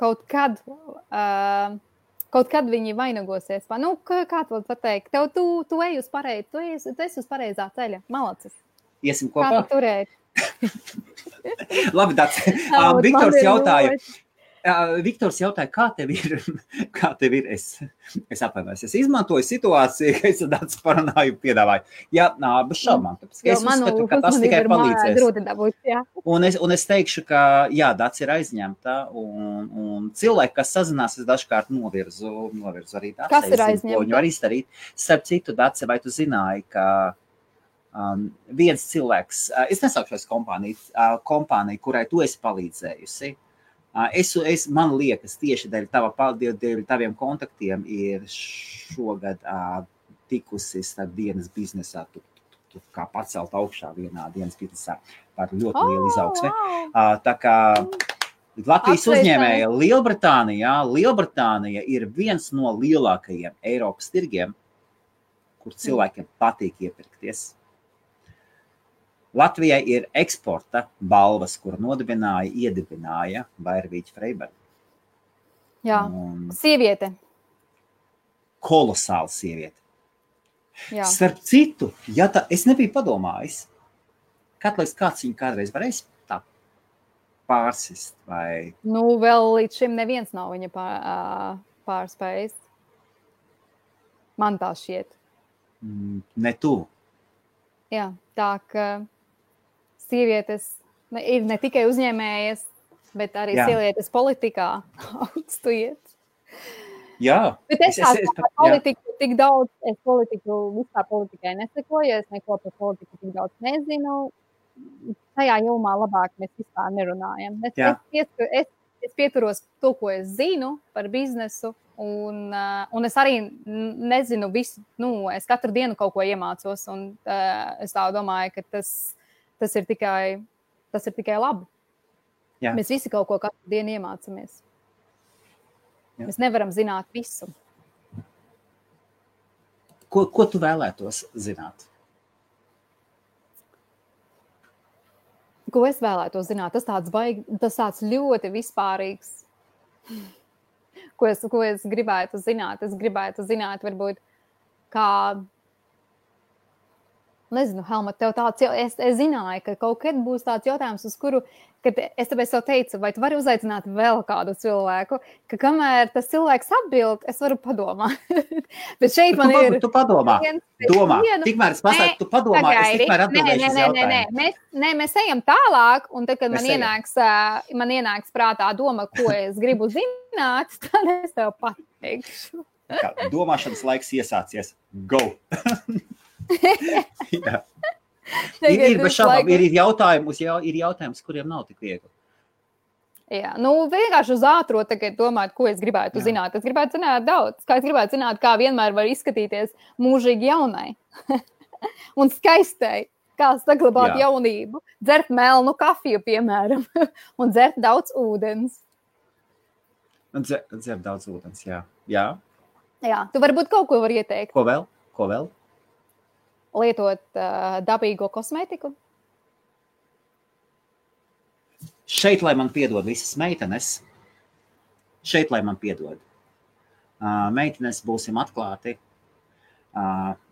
Speaker 2: kaut kad viņi vainagosies. Kā tu pateikt? Tu ej uz tu esi uz pareizā ceļa. Malacis.
Speaker 1: Iesim kopā?
Speaker 2: Kā tu turēt?
Speaker 1: Labi, Dāc. Viktors jautāja. Viktors jautāja, kā tev ir? Es atvainojos, es izmantoju situāciju, ka es tāds parunāju piedāvāju. Jā, bez šaubām. Es uzskatu, ka tas tikai palīdzēs. Un es teikšu, ka jā, Dats ir aizņemta, un cilvēki, kas sazinās, es dažkārt novirzu arī Dats.
Speaker 2: Kas ir aizņemta?
Speaker 1: Viņu var izdarīt. Starp citu, Dats, vai tu zināji, ka viens cilvēks, es nesaukšos kompāniju, kurai tu esi palīdzējusi. Man liekas, tieši dēļ taviem kontaktiem ir šogad tikusi starp dienas biznesā, tu kā pacelt augšā vienā dienas biznesā par ļoti lielu izaugsmi. Tā kā Latvijas uzņēmēja Lielbritānija ir viens no lielākajiem Eiropas tirgiem, kur cilvēkiem patīk iepirkties. Latvijai ir eksporta balvas, kur iedibināja Vairvīķa Freiberga.
Speaker 2: Jā, sieviete.
Speaker 1: Kolosāla sieviete.
Speaker 2: Jā.
Speaker 1: Starp citu, es nebiju padomājis, kāds viņu kādreiz varēs tā pārsist vai...
Speaker 2: Vēl līdz šim neviens nav viņa pārspējis. Man tā šķiet.
Speaker 1: Ne tu.
Speaker 2: Jā, tā ka sievietes ir ne tikai uzņēmējas, bet arī sievietes politikā augstu iet.
Speaker 1: Jā.
Speaker 2: Bet es politiku tik daudz, vispār politikai nesekoju, es neko par politiku tik daudz nezinu. Tajā jomā labāk mēs vispār nerunājam. Es pieturos to, ko es zinu par biznesu, un es arī nezinu visu, es katru dienu kaut ko iemācos, un es tā domāju, ka tas ir tikai labi.
Speaker 1: Jā.
Speaker 2: Mēs visi kaut ko katru dienu iemācamies. Jā. Mēs nevaram zināt visu.
Speaker 1: Ko tu vēlētos zināt?
Speaker 2: Ko es vēlētos zināt? Tas tāds ļoti vispārīgs. Ko es gribētu zināt? Es gribētu zināt, varbūt, kā... Nezinu, Helma, tev tāds... Es zināju, ka kaut kad būs tāds jautājums, uz kuru... Kad es tāpēc tev teicu, vai tu vari uzaicināt vēl kādu cilvēku, ka kamēr tas cilvēks atbild, es varu padomāt. Bet šeit man ir...
Speaker 1: Tu padomā. Domā. Tikmēr es pasaku, tu padomā, es tikmēr atbildēšu uz jautājumu.
Speaker 2: Mēs ejam tālāk, un tad, kad man ienāks prātā doma, ko es gribu zināt, tad es tev pateikšu.
Speaker 1: Domāšanas laiks iesācies. Go! Jā. Ir jautājums, kuriem nav tik viegli.
Speaker 2: Jā, vienkārši uz ātro tagad domāt, ko es gribētu zināt. Es gribētu zināt daudz. Es gribētu zināt, kā vienmēr var izskatīties mūžīgi jaunai un skaistai. Kā saglabāt jaunību. Dzert melnu kafiju, piemēram, un dzert daudz ūdens.
Speaker 1: Dzert daudz ūdens, jā.
Speaker 2: Jā, tu varbūt kaut ko var ieteikt.
Speaker 1: Ko vēl?
Speaker 2: Lietot dabīgo kosmētiku?
Speaker 1: Šeit, lai man piedod visas meitenes, meitenes būsim atklāti,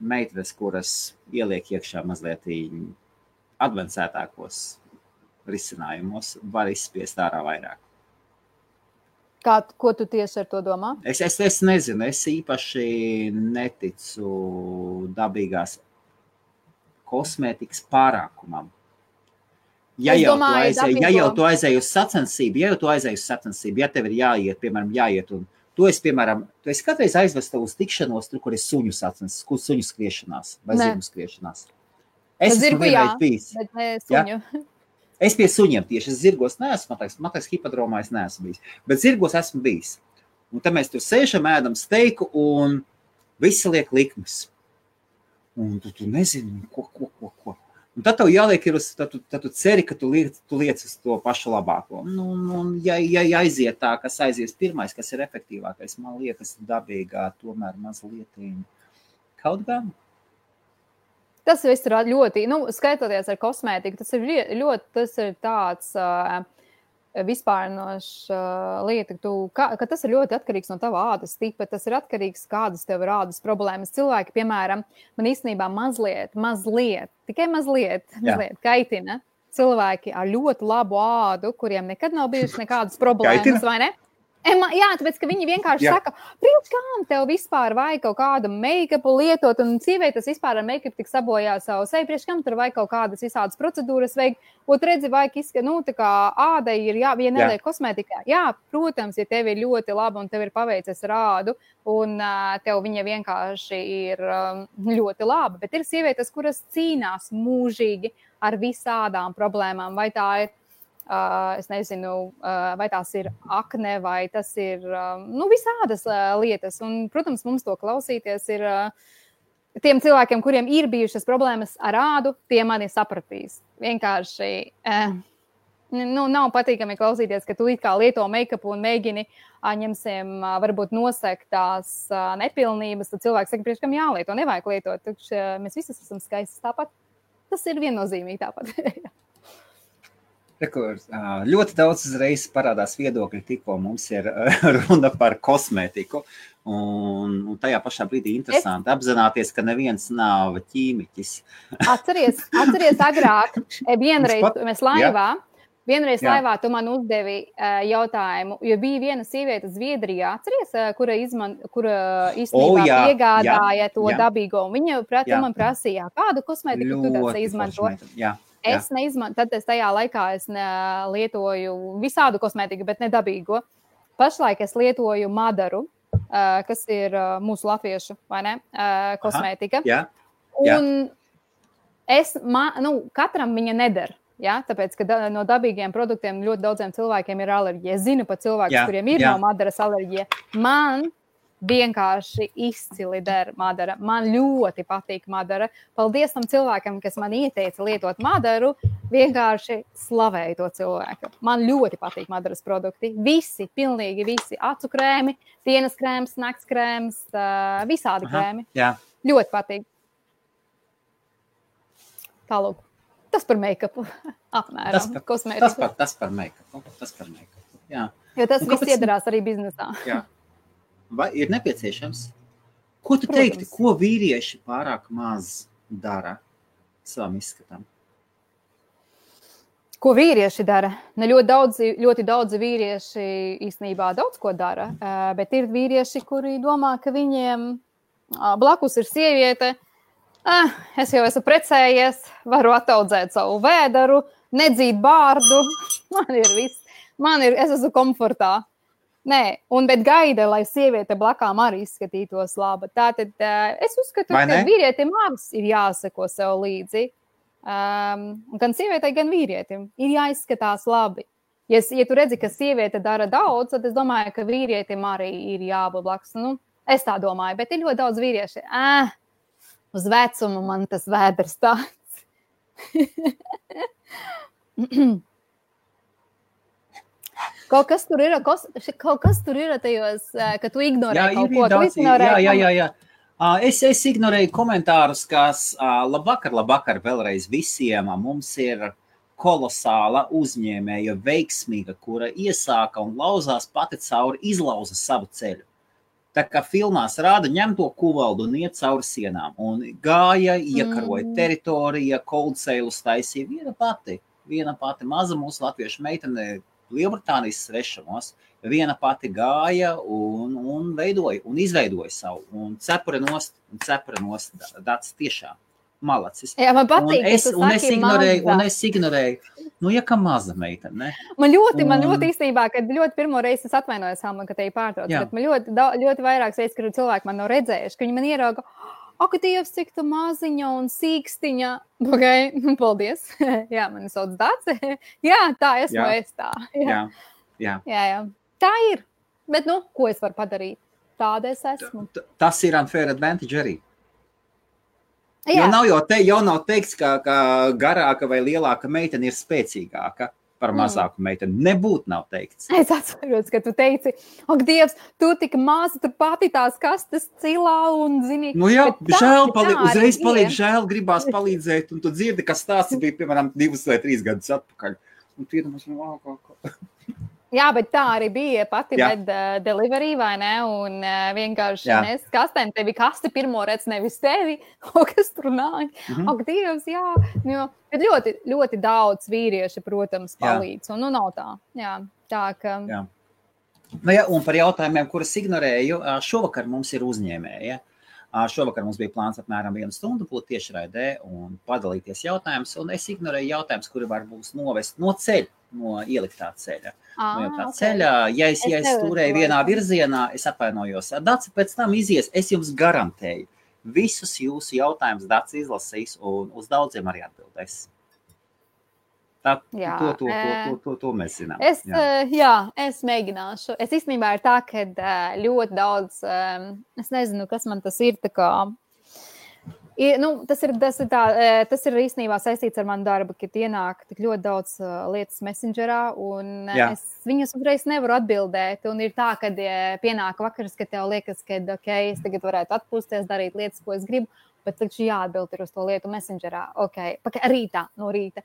Speaker 1: meitenes, kuras ieliek iekšā mazliet advancētākos risinājumos, var izspiest ārā vairāk.
Speaker 2: Ko tu tieši ar to domā?
Speaker 1: Es nezinu, es īpaši neticu dabīgās kosmētikas pārākumam. Ja jau tu aizēji uz sacensību, ja tev ir jāiet, piemēram, un tu esi kādreiz aizvesta uz tikšanos, tur, kur ir suņu sacensības, suņu skriešanās vai zirgu skriešanās. Es esmu vienreiz bijis.
Speaker 2: Bet ne suņu.
Speaker 1: Ja? Es pie suņiem tieši, es zirgos neesmu, man liekas, hipodromā es neesmu bijis, bet zirgos esmu bijis. Un tad mēs tur sēžam, ēdam steiku un visi liek likmes. Un tu nezini, ko. Un tad tev jāliek tad tu ceri, ka tu liec uz to pašu labāko. Ja aiziet tā, kas aizies pirmais, kas ir efektīvākais, man liekas dabīgā, tomēr mazliet kaut gan.
Speaker 2: Tas viss ir ļoti, skaitoties ar kosmētiku, tas ir tāds vispārinošs lieta, ka tas ir ļoti atkarīgs no tava ādas tipa, tas ir atkarīgs, kādas tev ir ādas problēmas. Cilvēki, piemēram, man īstenībā tikai mazliet kaitina cilvēki ar ļoti labu ādu, kuriem nekad nav bijušas nekādas problēmas, vai ne? Jā, tāpēc, ka viņi vienkārši saka, priekš kām tev vispār vajag kaut kādu make-upu lietot, un sievietes vispār ar make-up tik sabojā savu seju, priekš kam tur vajag kaut kādas visādas procedūras vajag, ot redzi, vajag tā kā ādai ir vienēliek kosmētikā. Jā, protams, ja tev ir ļoti laba un tev ir paveicies ar ādu, un tev viņa vienkārši ir ļoti laba, bet ir sievietes, kuras cīnās mūžīgi ar visādām problēmām, vai tā ir es nezinu, vai tās ir akne, vai tas ir visādas lietas. Un, protams, mums to klausīties ir tiem cilvēkiem, kuriem ir bijušas problēmas ar ādu, tie mani sapratīs. Vienkārši nav patīkami klausīties, ka tu it kā lieto make-upu un mēģini ņemsim varbūt nosekt tās nepilnības, tad cilvēks saka, priekš kam jālieto, nevajag lietot. Mēs visi esam skaistas tāpat. Tas ir viennozīmīgi tāpat.
Speaker 1: Ļoti daudz uzreiz parādās viedokļi, tikko mums ir runa par kosmētiku, un tajā pašā brīdī interesanti apzināties, ka neviens nav ķīmiķis.
Speaker 2: Atceries agrāk, vienreiz laivā tu man uzdevi jautājumu, jo bija viena sieviete Zviedrijā, atceries, kura īstenībā piegādāja to dabīgo, un viņa man prasīja, kādu kosmētiku tu tāds izmanto? Es neizmantoju, tad tajā laikā es lietoju visādu kosmētiku, bet ne dabīgo. Pašlaik es lietoju Madaru, kas ir mūsu latviešu, vai ne, kosmētika. Un katram viņa neder, tāpēc, ka no dabīgiem produktiem ļoti daudziem cilvēkiem ir alerģija. Es zinu pat cilvēkus, kuriem ir no Madaras alerģija. Man vienkārši izcili der Madara. Man ļoti patīk Madara. Paldies tam cilvēkam, kas man ieteica lietot Madaru, vienkārši slavēju to cilvēku. Man ļoti patīk Madaras produkti. Visi, pilnīgi visi. Acu krēmi, dienas krēms, nakts krēms, visādi krēmi. Ļoti patīk. Tālūk. Tas par make-upu. Apmēram.
Speaker 1: Tas par make-upu. Jā.
Speaker 2: Jo tas viss iedarās arī biznesā.
Speaker 1: Jā. Vai ir nepieciešams? Ko tu teikti, ko vīrieši pārāk maz dara savam izskatam?
Speaker 2: Ko vīrieši dara? Ļoti daudzi vīrieši īstenībā daudz ko dara, bet ir vīrieši, kuri domā, ka viņiem blakus ir sieviete, es jau esmu precējies, varu ataudzēt savu vēderu, nedzīt bārdu, man ir viss, es esmu komfortā. Nē, bet gaida, lai sieviete blakām arī izskatītos laba. Tātad es uzskatu, ka vīrietim abas ir jāseko sev līdzi. Gan sievietei, gan vīrietim ir jāizskatās labi. Ja tu redzi, ka sieviete dara daudz, tad es domāju, ka vīrietim arī ir jābūt blakus. Es tā domāju, bet ir ļoti daudz vīrieši. Uz vecumu man tas vēders tāds. Kaut kas tur ir tajos, ka tu ignorē kaut ko.
Speaker 1: Jā. Es ignorēju komentārus, kas labvakar vēlreiz visiem. Mums ir kolosāla uzņēmēja veiksmīga, kura iesāka un lauzās pati cauri, izlauza savu ceļu. Tā kā filmās rāda, ņem to kuvaldu un iet cauri sienām. Un gāja, iekaroja teritorija, cold sales taisīja viena pati maza mūsu latviešu meitene, Lielbritānijas svešamos, viena pati gāja un veidoja un izveidoja savu. Un cepura nost, tāds tiešām malacis.
Speaker 2: Jā, man patīk,
Speaker 1: un es ignorēju, ka maza meitene, ne?
Speaker 2: Man ļoti īstenībā, kad ļoti pirmo reizi es atvainojos, Alma, ka te ir pārtrauc, bet man ļoti vairākas reizes, kad cilvēki man nav redzējuši, ka viņi man ierauga, ak, Dievs, cik tu maziņa un sīkstiņa. Okay, paldies. Jā, mani sauc Dace. Jā, tā esmu es tā. Jā. Tā ir. Bet, ko es varu padarīt? Tāda es esmu.
Speaker 1: Tas ir unfair advantage arī. Jo nav teikts, ka garāka vai lielāka meitene ir spēcīgāka par mazāku meiteni. Nebūt nav teikts.
Speaker 2: Es atceros, ka tu teici, ak, Dievs, tu tik maza, tu pati tās kastes cilā un zini.
Speaker 1: Žēl, uzreiz paliek žēl, gribās palīdzēt, un tu dzirdi, ka stāsts bija, piemēram, 2 vai 3 gadus atpakaļ. Un tu iedomās,
Speaker 2: Jā, bet tā arī bija pati med delivery, vai ne? Un vienkārši nes kastēm, tevi kasti pirmo redz nevis tevi, kas tur nāk. Ak, Dievs, jā. Bet ļoti, ļoti daudz vīrieši, protams, palīdz. Un nav tā. Jā, tā ka... Jā.
Speaker 1: Nu, ja, un par jautājumiem, kurus ignorēju, šovakar mums ir uzņēmēja. Šovakar mums bija plāns apmēram 1 stundu būt tiešraidē un padalīties jautājumus, un es ignorēju jautājumus, kuri var būs novest no ceļa, no ieliktā ceļa. Ceļā, ja es turēju vienā virzienā, es atvainojos. Daci pēc tam izies, es jums garantēju. Visus jūsu jautājumus Daci izlasīs un uz daudziem arī atbildēs. Tā, to mēs zinām.
Speaker 2: Es mēģināšu. Es īstenībā ir tā, ka ļoti daudz, es nezinu, kas man tas ir, tā kā, tas ir īstenībā saistīts ar manu darbu, kad ienāk tik ļoti daudz lietas Messengerā, un es viņus uzreiz nevaru atbildēt, un ir tā, kad pienāk vakars, kad tev liekas, ka es tagad varētu atpūsties, darīt lietas, ko es gribu, bet taču jāatbild ir uz to lietu Messengerā. No rīta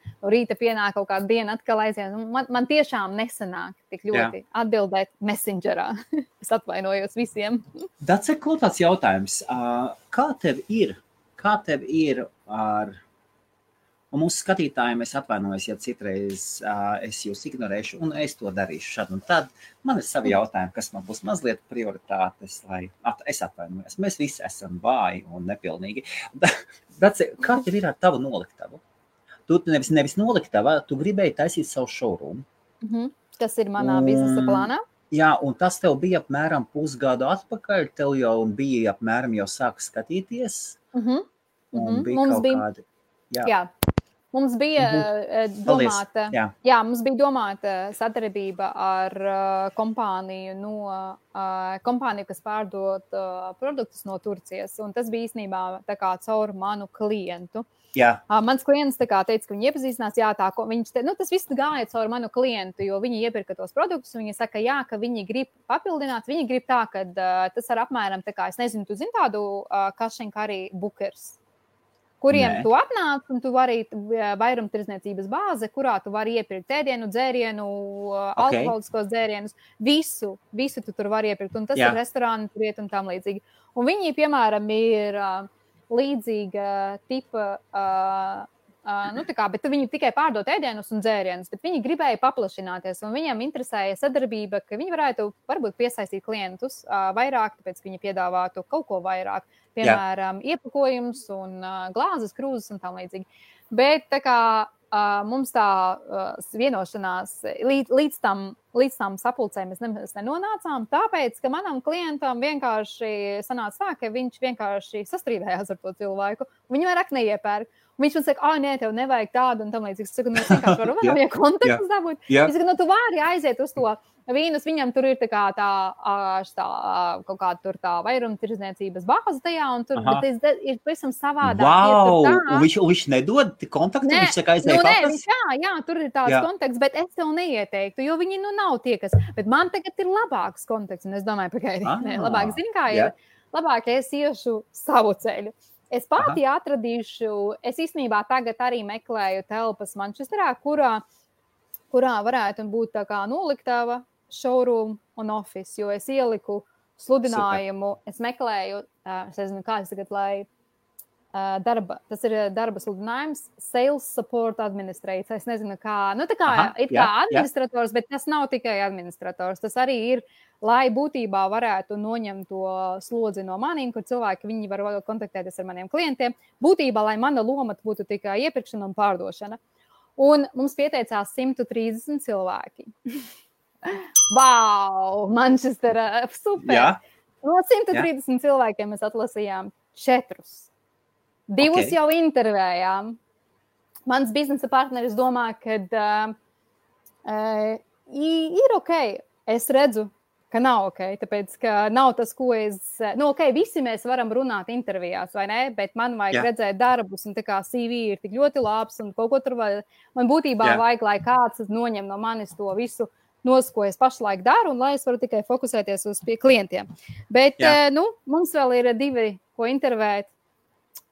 Speaker 2: pienāk kaut kāda diena atkal aiziet. Man tiešām nesanāk tik ļoti atbildēt Messengerā. Es atvainojos visiem.
Speaker 1: Dace, ko tāds jautājums? Kā tev ir ar... Un mūsu skatītājiem es atvainojos, ja citreiz es jūs ignorēšu, un es to darīšu šad un tad. Man ir savi jautājumi, kas man būs mazliet prioritātes, lai es atvainojos. Mēs visi esam vāji un nepilnīgi. Dace, kā tev ir ar tavu noliktavu? Tu nevis noliktava, tu gribēji taisīt savu showroom.
Speaker 2: Tas ir manā biznesa plānā.
Speaker 1: Jā, un tas tev bija apmēram pusgadu atpakaļ, tev jau bija apmēram jau sāka skatīties. Un bija
Speaker 2: mums
Speaker 1: kaut kādi...
Speaker 2: Jā. Mums bija domāta sadarbība ar kompāniju, kas pārdod produktus no Turcijas, un tas bija īstenībā tā kā caur manu klientu. Mans klients teica, ka viņi iepazīstinās, tas viss gāja caur manu klientu, jo viņi iepirka tos produktus, un viņi saka, ka viņi grib papildināt, viņi grib tā, ka tas ar apmēram, es nezinu, tu zini tādu cash and carry bookers, kuriem tu atnāc, un tu vari vairumtirdzniecības bāze, kurā tu vari iepirkt ēdienu, dzērienu, alkoholiskos dzērienus, visu tu tur vari iepirkt, un tas ir restorāni, tur iet un tam līdzīgi. Un viņi, piemēram, ir līdzīga tipa, bet viņi tikai pārdot ēdienus un dzērienus, bet viņi gribēja paplašināties, un viņiem interesēja sadarbība, ka viņi varētu varbūt piesaistīt klientus vairāk, tāpēc viņi piedāvātu kaut ko vairāk. Piemēram, iepakojums un glāzes, krūzes un tam līdzīgi. Bet tā kā mums tā vienošanās līdz tam sapulcēm mēs nenonācām, tāpēc, ka manam klientam vienkārši sanāca tā, ka viņš vienkārši sastrīdējās ar to cilvēku, un viņi vairāk neiepērk. Un viņš man saka, nē, tev nevajag tādu un tam līdzīgi. Es saku, es vienkārši varu vēl kontaktus dabūt. Es saku, tu vari aiziet uz to vīnus, viņam tur ir tā kā kaut kāda tur tā vairumtirdzniecības bāze tajā, un tur ir pavisam savādāk.
Speaker 1: Wow! Un viņš nedod kontaktu? Viņš saka, aizēja papas?
Speaker 2: Jā, tur ir tāds kontakts, bet es tev neieteiktu, jo viņi nav tie, kas... Bet man tagad ir labāks kontakts, un es domāju, labāk zini, kā ir. Labāk es iešu savu ceļu. Es pati atradīšu, es īstenībā tagad arī meklēju telpas Manchesterā, kurā varētu būt tā kā noliktava, showroom un office, jo es ieliku sludinājumu, es meklēju, es nezinu, kā es tagad, lai tas ir darba sludinājums, Sales Support Administrator, es nezinu, kā, administrators, bet tas nav tikai administrators, tas arī ir, lai būtībā varētu noņemt to slodzi no maniem, kur cilvēki, viņi var kontaktēties ar maniem klientiem, būtībā, lai mana loma būtu tikai iepirkšana un pārdošana. Un mums pieteicās 130 cilvēki. Wow, Manchestera, super! Jā. No 130 cilvēkiem mēs atlasījām 4. 2 jau intervējām. Mans biznesa partneris domā, ka ir ok. Es redzu, ka nav ok, tāpēc, ka nav tas, ko visi mēs varam runāt intervijās, vai ne? Bet man vajag redzēt darbus, un tā kā CV ir tik ļoti labs, un kaut ko tur vajag. Man būtībā vajag, lai kāds noņem no manis to visu ko es pašlaik daru, un lai es varu tikai fokusēties uz pie klientiem. Bet, mums vēl ir 2, ko intervēt.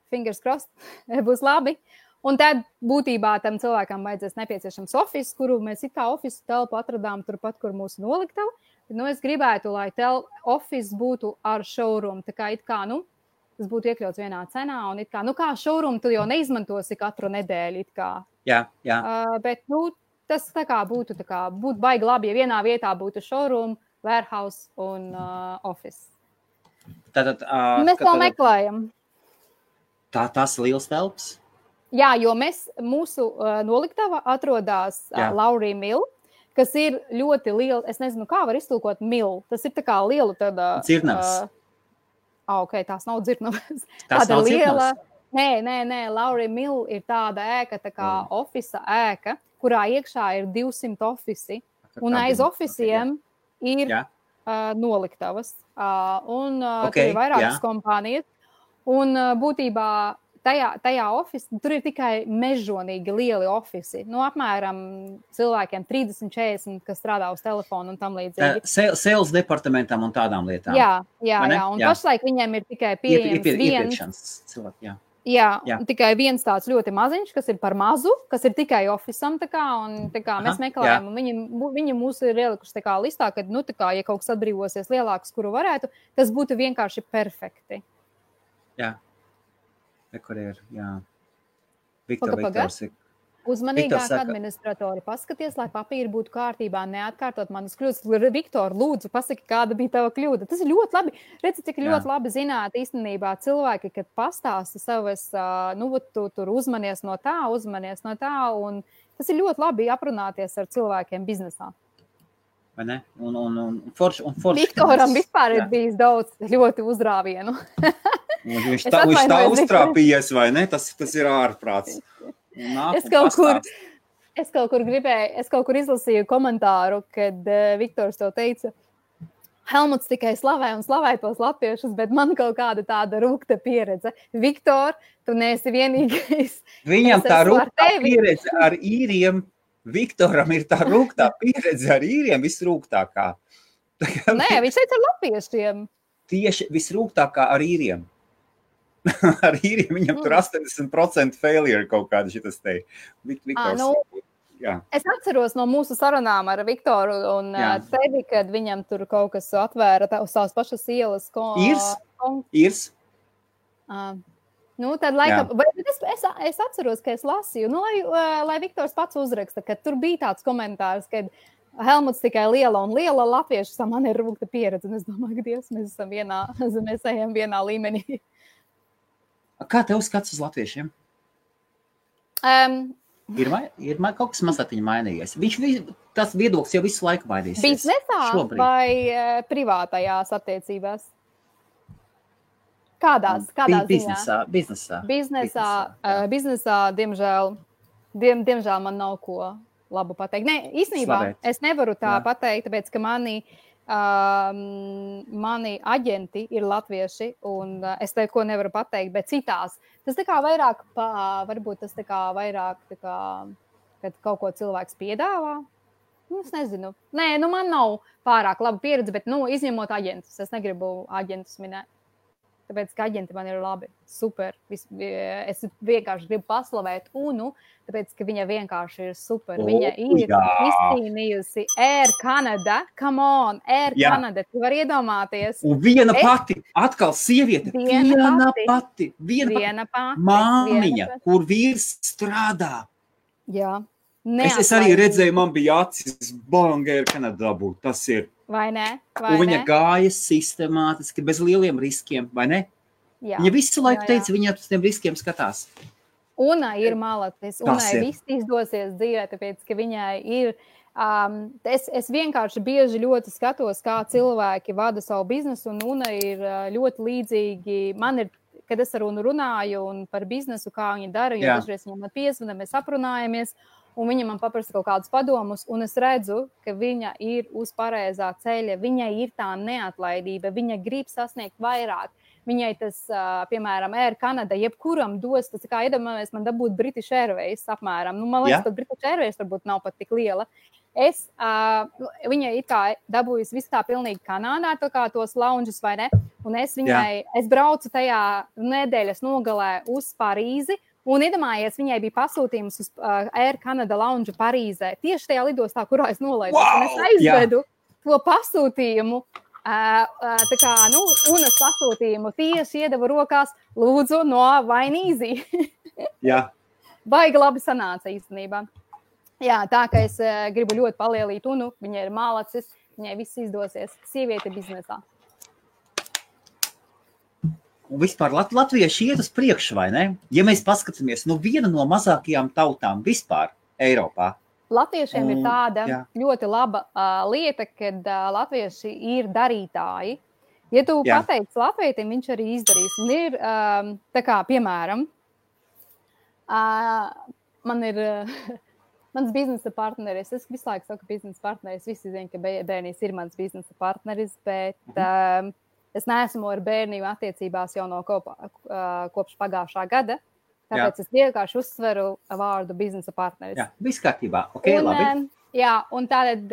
Speaker 2: Fingers crossed, būs labi. Un tad būtībā tam cilvēkam vajadzēs nepieciešams office, kuru mēs it kā office telpu atradām turpat, kur mūsu noliktava. Es gribētu, lai office būtu ar showroom, tā kā tas būtu iekļauts vienā cenā, un kā showroom tu jau neizmantosi katru nedēļu,
Speaker 1: Jā.
Speaker 2: Bet, tas būtu baigi labi, ja vienā vietā būtu showroom, warehouse un office.
Speaker 1: Tātad,
Speaker 2: Mēs to meklējam.
Speaker 1: Tas liels telps?
Speaker 2: Jā, jo mūsu noliktava atrodas Laurija Mill, kas ir ļoti liela, es nezinu, kā var iztulkot mill. Tas ir tā kā liela tāda...
Speaker 1: Dzirnavas.
Speaker 2: Ok, tās nav dzirnavas.
Speaker 1: Tas nav liela.
Speaker 2: Nē, Laurija Mill ir tāda ēka, tā kā ofisa ēka, kurā iekšā ir 200 ofisi, un aiz ofisiem ir noliktavas. Tur ir vairākas kompānijas, un būtībā tajā ofisā, tur ir tikai mežonīgi lieli ofisi. Apmēram cilvēkiem 30-40, kas strādā uz telefonu un tam līdzīgi.
Speaker 1: Sales departamentam un tādām lietām.
Speaker 2: Jā. Un pašlaik viņiem ir tikai pieejams viens. Jā, tikai viens tāds ļoti maziņš, kas ir par mazu, kas ir tikai ofisam, mēs meklējam, un viņi mūs ir ielikuši listā, ka, ja kaut kas atbrīvosies lielāks, kuru varētu, tas būtu vienkārši perfekti.
Speaker 1: Jā. Kur ir, jā. Viktors ir.
Speaker 2: Uzmanīgāk administratori, paskaties, lai papīri būtu kārtībā, neatkārtot manas kļūdas. Viktor, lūdzu, pasaki, kāda bija tava kļūda. Tas ir ļoti labi. Redzi, cik ļoti labi zināt īstenībā cilvēki, kad pastāsta savas, tu tur uzmanies no tā, un tas ir ļoti labi aprunāties ar cilvēkiem biznesā.
Speaker 1: Vai ne? Un forši.
Speaker 2: Viktoram vispār ir bijis daudz ļoti uzrāvienu.
Speaker 1: Viņš tā uztrāpījies, vai ne? Tas ir ārprāts.
Speaker 2: Es kaut kur izlasīju komentāru, kad Viktors to teica, Helmuts tikai slavē tos latviešus, bet man kaut kāda tāda rūgta pieredze. Viktor, tu neesi vienīgais.
Speaker 1: Viņam tā rūgtā pieredze ar īriem, Viktoram ir tā rūgtā pieredze ar īriem visrūgtākā.
Speaker 2: Nē, viņš teica ar latviešiem.
Speaker 1: Tieši visrūgtākā ar īriem. Ar īriem viņam tur 80% failure kaut kāda šitas te.
Speaker 2: Es atceros no mūsu sarunām ar Viktoru un tevi, kad viņam tur kaut kas atvēra uz tās pašas ielas.
Speaker 1: Īrs?
Speaker 2: Tad laikam, es atceros, ka es lasīju, lai Viktors pats uzraksta, ka tur bija tāds komentārs, kad Helmuts tikai liela latviešu, man ir rūgta pieredze, un es domāju, ka Dievs, mēs ejam vienā līmenī.
Speaker 1: Kā tev skats uz latviešiem? Ir kaut kas mazliet mainījies. Tas viedoklis jau visu laiku mainīsies.
Speaker 2: Biznesā vai privātajās attiecībās? Kādās ziņā? Biznesā, diemžēl man nav ko labu pateikt. Nē, īstenībā es nevaru tā pateikt, tāpēc, ka mani aģenti ir latvieši, un es tev ko nevaru pateikt, bet citās. Tas tā kā vairāk, varbūt tas tā kā vairāk, kad kaut ko cilvēks piedāvā. Es nezinu. Nē, man nav pārāk laba pieredze, bet, izņemot aģentus. Es negribu aģentus minēt. Tāpēc, ka aģenti man ir labi, super. Es vienkārši gribu paslavēt Unu, tāpēc, ka viņa vienkārši ir super. Viņa ir izcīnījusi Air Canada. Come on, Air Canada. Tu vari iedomāties.
Speaker 1: Un viena pati, atkal sieviete. Viena pati. Māmiņa, kur vīrs strādā.
Speaker 2: Jā.
Speaker 1: Es arī redzēju, man bija acis Air Canada dabūt. Tas ir.
Speaker 2: Vai ne?
Speaker 1: Un viņa gāja sistemātiski, bez lieliem riskiem, vai ne?
Speaker 2: Jā.
Speaker 1: Viņa visu laiku teica, viņa uz tiem riskiem skatās.
Speaker 2: Una ir malacis, Unai viss izdosies dzīvē, tāpēc, ka viņai ir... Es vienkārši bieži ļoti skatos, kā cilvēki vada savu biznesu, un Una ir ļoti līdzīgi. Man ir, kad es ar Unu runāju un par biznesu, kā viņa dara, jo dažreiz viņam man piezvana, mēs aprunājamies, un viņa man paprasa kaut kādus padomus, un es redzu, ka viņa ir uz pareizā ceļa, viņai ir tā neatlaidība, viņa grib sasniegt vairāk. Viņai tas, piemēram, Air Canada, jebkuram dos, tas kā iedomājamies, man dabūt British Airways apmēram. Man liekas, pat British Airways varbūt nav pat tik liela. Viņa ir kā dabūjusi visu tā pilnīgi Kanādā, tā kā tos lounges vai ne, un es braucu tajā nedēļas nogalē uz Parīzi, un iedomājies, viņai bija pasūtījums uz Air Canada lounge Parīzē, tieši tajā lidostā, kurā es nolaidu. Un es aizvedu to pasūtījumu, tā kā, Unas pasūtījumu tieši iedevu rokās, lūdzu, no Vainīzī. Baigi labi sanāca īstenībā. Jā, tā, ka es gribu ļoti palielīt Unu, viņa ir malacis, viņai viss izdosies. Sieviete biznesā.
Speaker 1: Un vispār latvieši iet uz priekšu, vai ne? Ja mēs paskatāmies, viena no mazākajām tautām vispār Eiropā.
Speaker 2: Latviešiem ir tāda ļoti laba lieta, kad latvieši ir darītāji. Ja tu pateici latvietim, viņš arī izdarīs. Un ir, tā kā, piemēram, man ir mans biznesa partneris. Es visu laiku saku biznesa partneris. Visi zina, ka bērnīs ir mans biznesa partneris, bet es neesmu ar bērniju attiecībās jau no kopš pagājušā gada. Tāpēc es vienkārši uzsveru vārdu biznesa partneris.
Speaker 1: Jā, viss kārtībā. Ok, labi.
Speaker 2: Jā, un tātad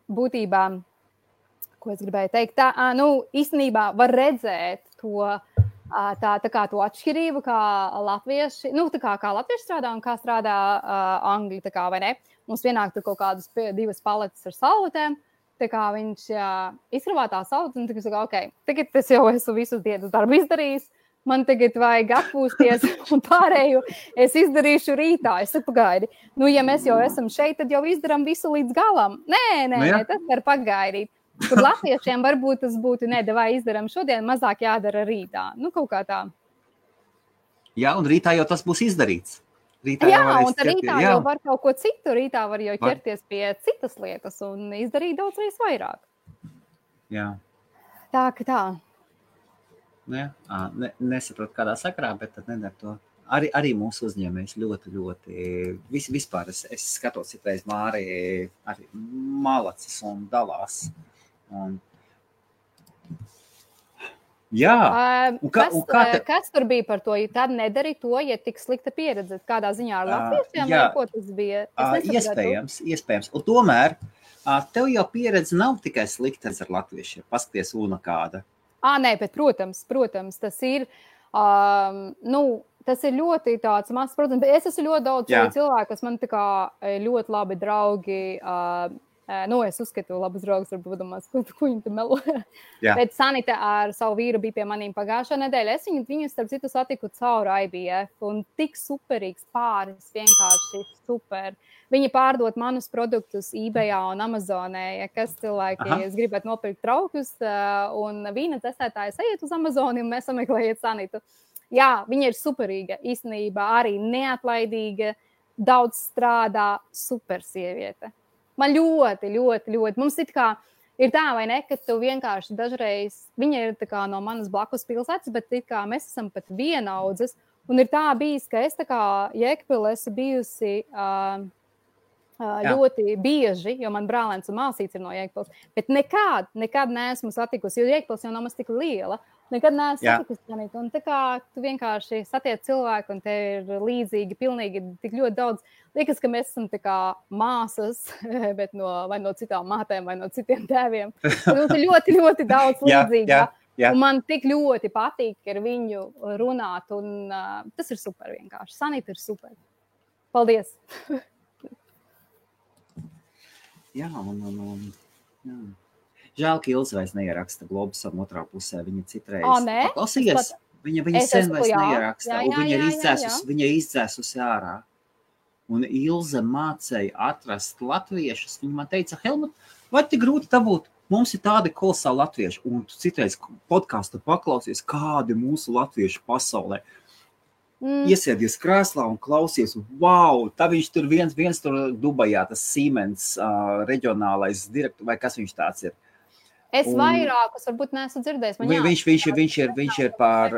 Speaker 2: būtībā, ko es gribēju teikt, īstenībā var redzēt to, tā kā to atšķirību, kā latvieši, kā latvieši strādā un kā strādā angļi, tā kā, vai ne? Mums vienāk tur kaut kādas 2 paletes ar salvetēm, tā kā viņš izkrāvā tā salvetes, un tagad saka, ok, tagad es jau esmu visus dienas darbu izdarījis, man tagad vajag atpūsties un pārēju es izdarīšu rītā. Es saku, pagaidi, ja mēs jau esam šeit, tad jau izdaram visu līdz galam. Nē, tas var pagaidīt. Kur latviešiem varbūt tas būtu, vai izdaram šodien, mazāk jādara rītā. Kaut kā tā.
Speaker 1: Jā, un rītā jau tas būs izdarīts.
Speaker 2: Rītā un rītā jau var kaut ko citu. Rītā var jau ķerties pie citas lietas un izdarīt daudz reiz vairāk.
Speaker 1: Jā.
Speaker 2: Tā, ka tā.
Speaker 1: Nesaprotu kādā sakarā, bet tad nedara to. Arī mūsu uzņēmējs ļoti, vispār es skatos citreiz Māri arī malacis un dalās. Jā.
Speaker 2: Kas tur bija par to? Ja tad nedari to, ja tik slikta pieredze, kādā ziņā ar latviešiem, vai ko tas bija?
Speaker 1: Iespējams. Un tomēr tev jau pieredze nav tikai slikta ar latviešiem. Paskaties, Una kāda.
Speaker 2: Nē, bet protams, tas ir, tas ir ļoti tāds mazs, protams, bet es esmu ļoti daudz cilvēku, kas man tā kā ļoti labi draugi, es uzskatu labus draugus, varbūt domās, ko viņi te melo. Bet Sanita ar savu vīru bija pie manīm pagājušā nedēļa. Es viņu starp citu satiku caur IBF, un tik superīgs pāris, vienkārši super. Viņi pārdot manus produktus eBayā un Amazonē, kas cilvēki, es gribētu nopirkt traukus, un vīna testētājs ejiet uz Amazoni, un mēs sameklējiet Sanitu. Jā, viņa ir superīga, īstenībā arī neatlaidīga, daudz strādā, super sieviete. Man ļoti, mums it kā ir tā, vai ne, ka tu vienkārši dažreiz, viņa ir tā kā no manas blakus pilsētas, bet it kā mēs esam pat vienaudzes, un ir tā bijis, ka es tā kā Jēkabpilī esmu bijusi ļoti bieži, jo man brālēns un māsīts ir no Jēkabpiles, bet nekad neesmu satikusi, jo Jēkabpils jau nav maz tik liela, nekad neesmu satikusi, un tā kā tu vienkārši satiec cilvēku, un te ir līdzīgi, pilnīgi tik ļoti daudz. Liekas, ka mēs esam tā kā māsas, bet vai no citām mātēm, vai no citiem tēviem. Mums ir ļoti daudz līdzīgā. Un man tik ļoti patīk ar viņu runāt, un tas ir super vienkārši. Sanita ir super. Paldies!
Speaker 1: Jā. Žēl, ka Ilze vairs neieraksta Globusam otrā pusē. Viņa citreiz paklausījies. Viņa sen vairs neieraksta. Un viņa ir izdzēsusi ārā. Un Ilze mācēja atrast latviešus. Viņa man teica, Helmut, vai tik grūti dabūt? Mums ir tādi kolosāli latvieši. Un tu citreiz podcastu paklausies, kādi mūsu latvieši pasaulē. Iesēdies krēslā un klausies, wow, tā viņš tur viens tur Dubajā, tas Siemens reģionālais direktors, vai kas viņš tāds ir?
Speaker 2: Es vairākus varbūt neesmu dzirdējis.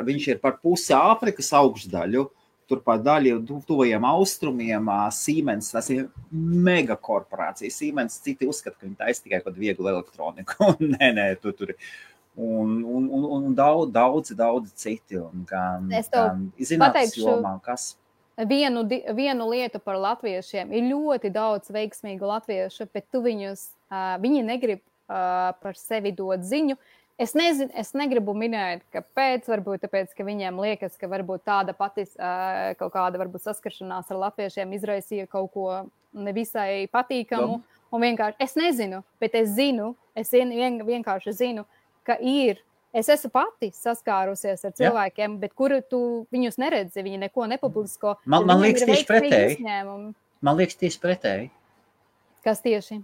Speaker 1: Viņš ir par pusi Āfrikas augšdaļu, tur par daļu tuvajiem austrumiem, Siemens, tas ir mega korporācija. Siemens citi uzskata, ka viņi taisa tikai kaut vieglu elektroniku. Nē, tur ir. Un daudzi citi.
Speaker 2: Es pateikšu vienu lietu par latviešiem. Ir ļoti daudz veiksmīgu latviešu, bet viņi negrib par sevi dot ziņu. Es negribu minēt, kāpēc, varbūt tāpēc, ka viņiem liekas, ka varbūt tāda pati kaut kāda varbūt saskaršanās ar latviešiem izraisīja kaut ko nevisai patīkamu. Un vienkārši, es nezinu, bet es vienkārši zinu, ka es esmu pati saskārusies ar cilvēkiem, bet kuru tu viņus neredzi, viņi neko nepublisko.
Speaker 1: Man liekas tieši pretēji.
Speaker 2: Kas tieši?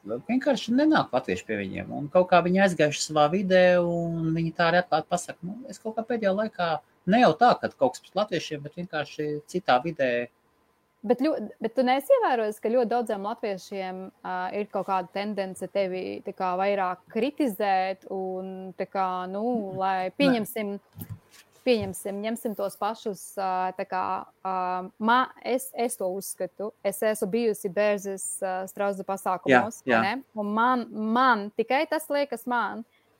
Speaker 1: vienkārši nenāk latvieši pie viņiem. Un kaut kā viņi aizgājuši savā vidē, un viņi tā arī atklāti pasaka, es kaut kā pēdējā laikā, ne jau tā, ka kaut kas pret latviešiem, bet vienkārši citā vidē.
Speaker 2: Bet tu neesi ievērojis, ka ļoti daudziem latviešiem ir kaut kāda tendence tevi tā kā vairāk kritizēt un tā kā, lai pieņemsim, ņemsim tos pašus, tā kā, es to uzskatu, es esmu bijusi Bērzes Strauza pasākumos,
Speaker 1: Jā.
Speaker 2: ne? Un man, tikai tas liekas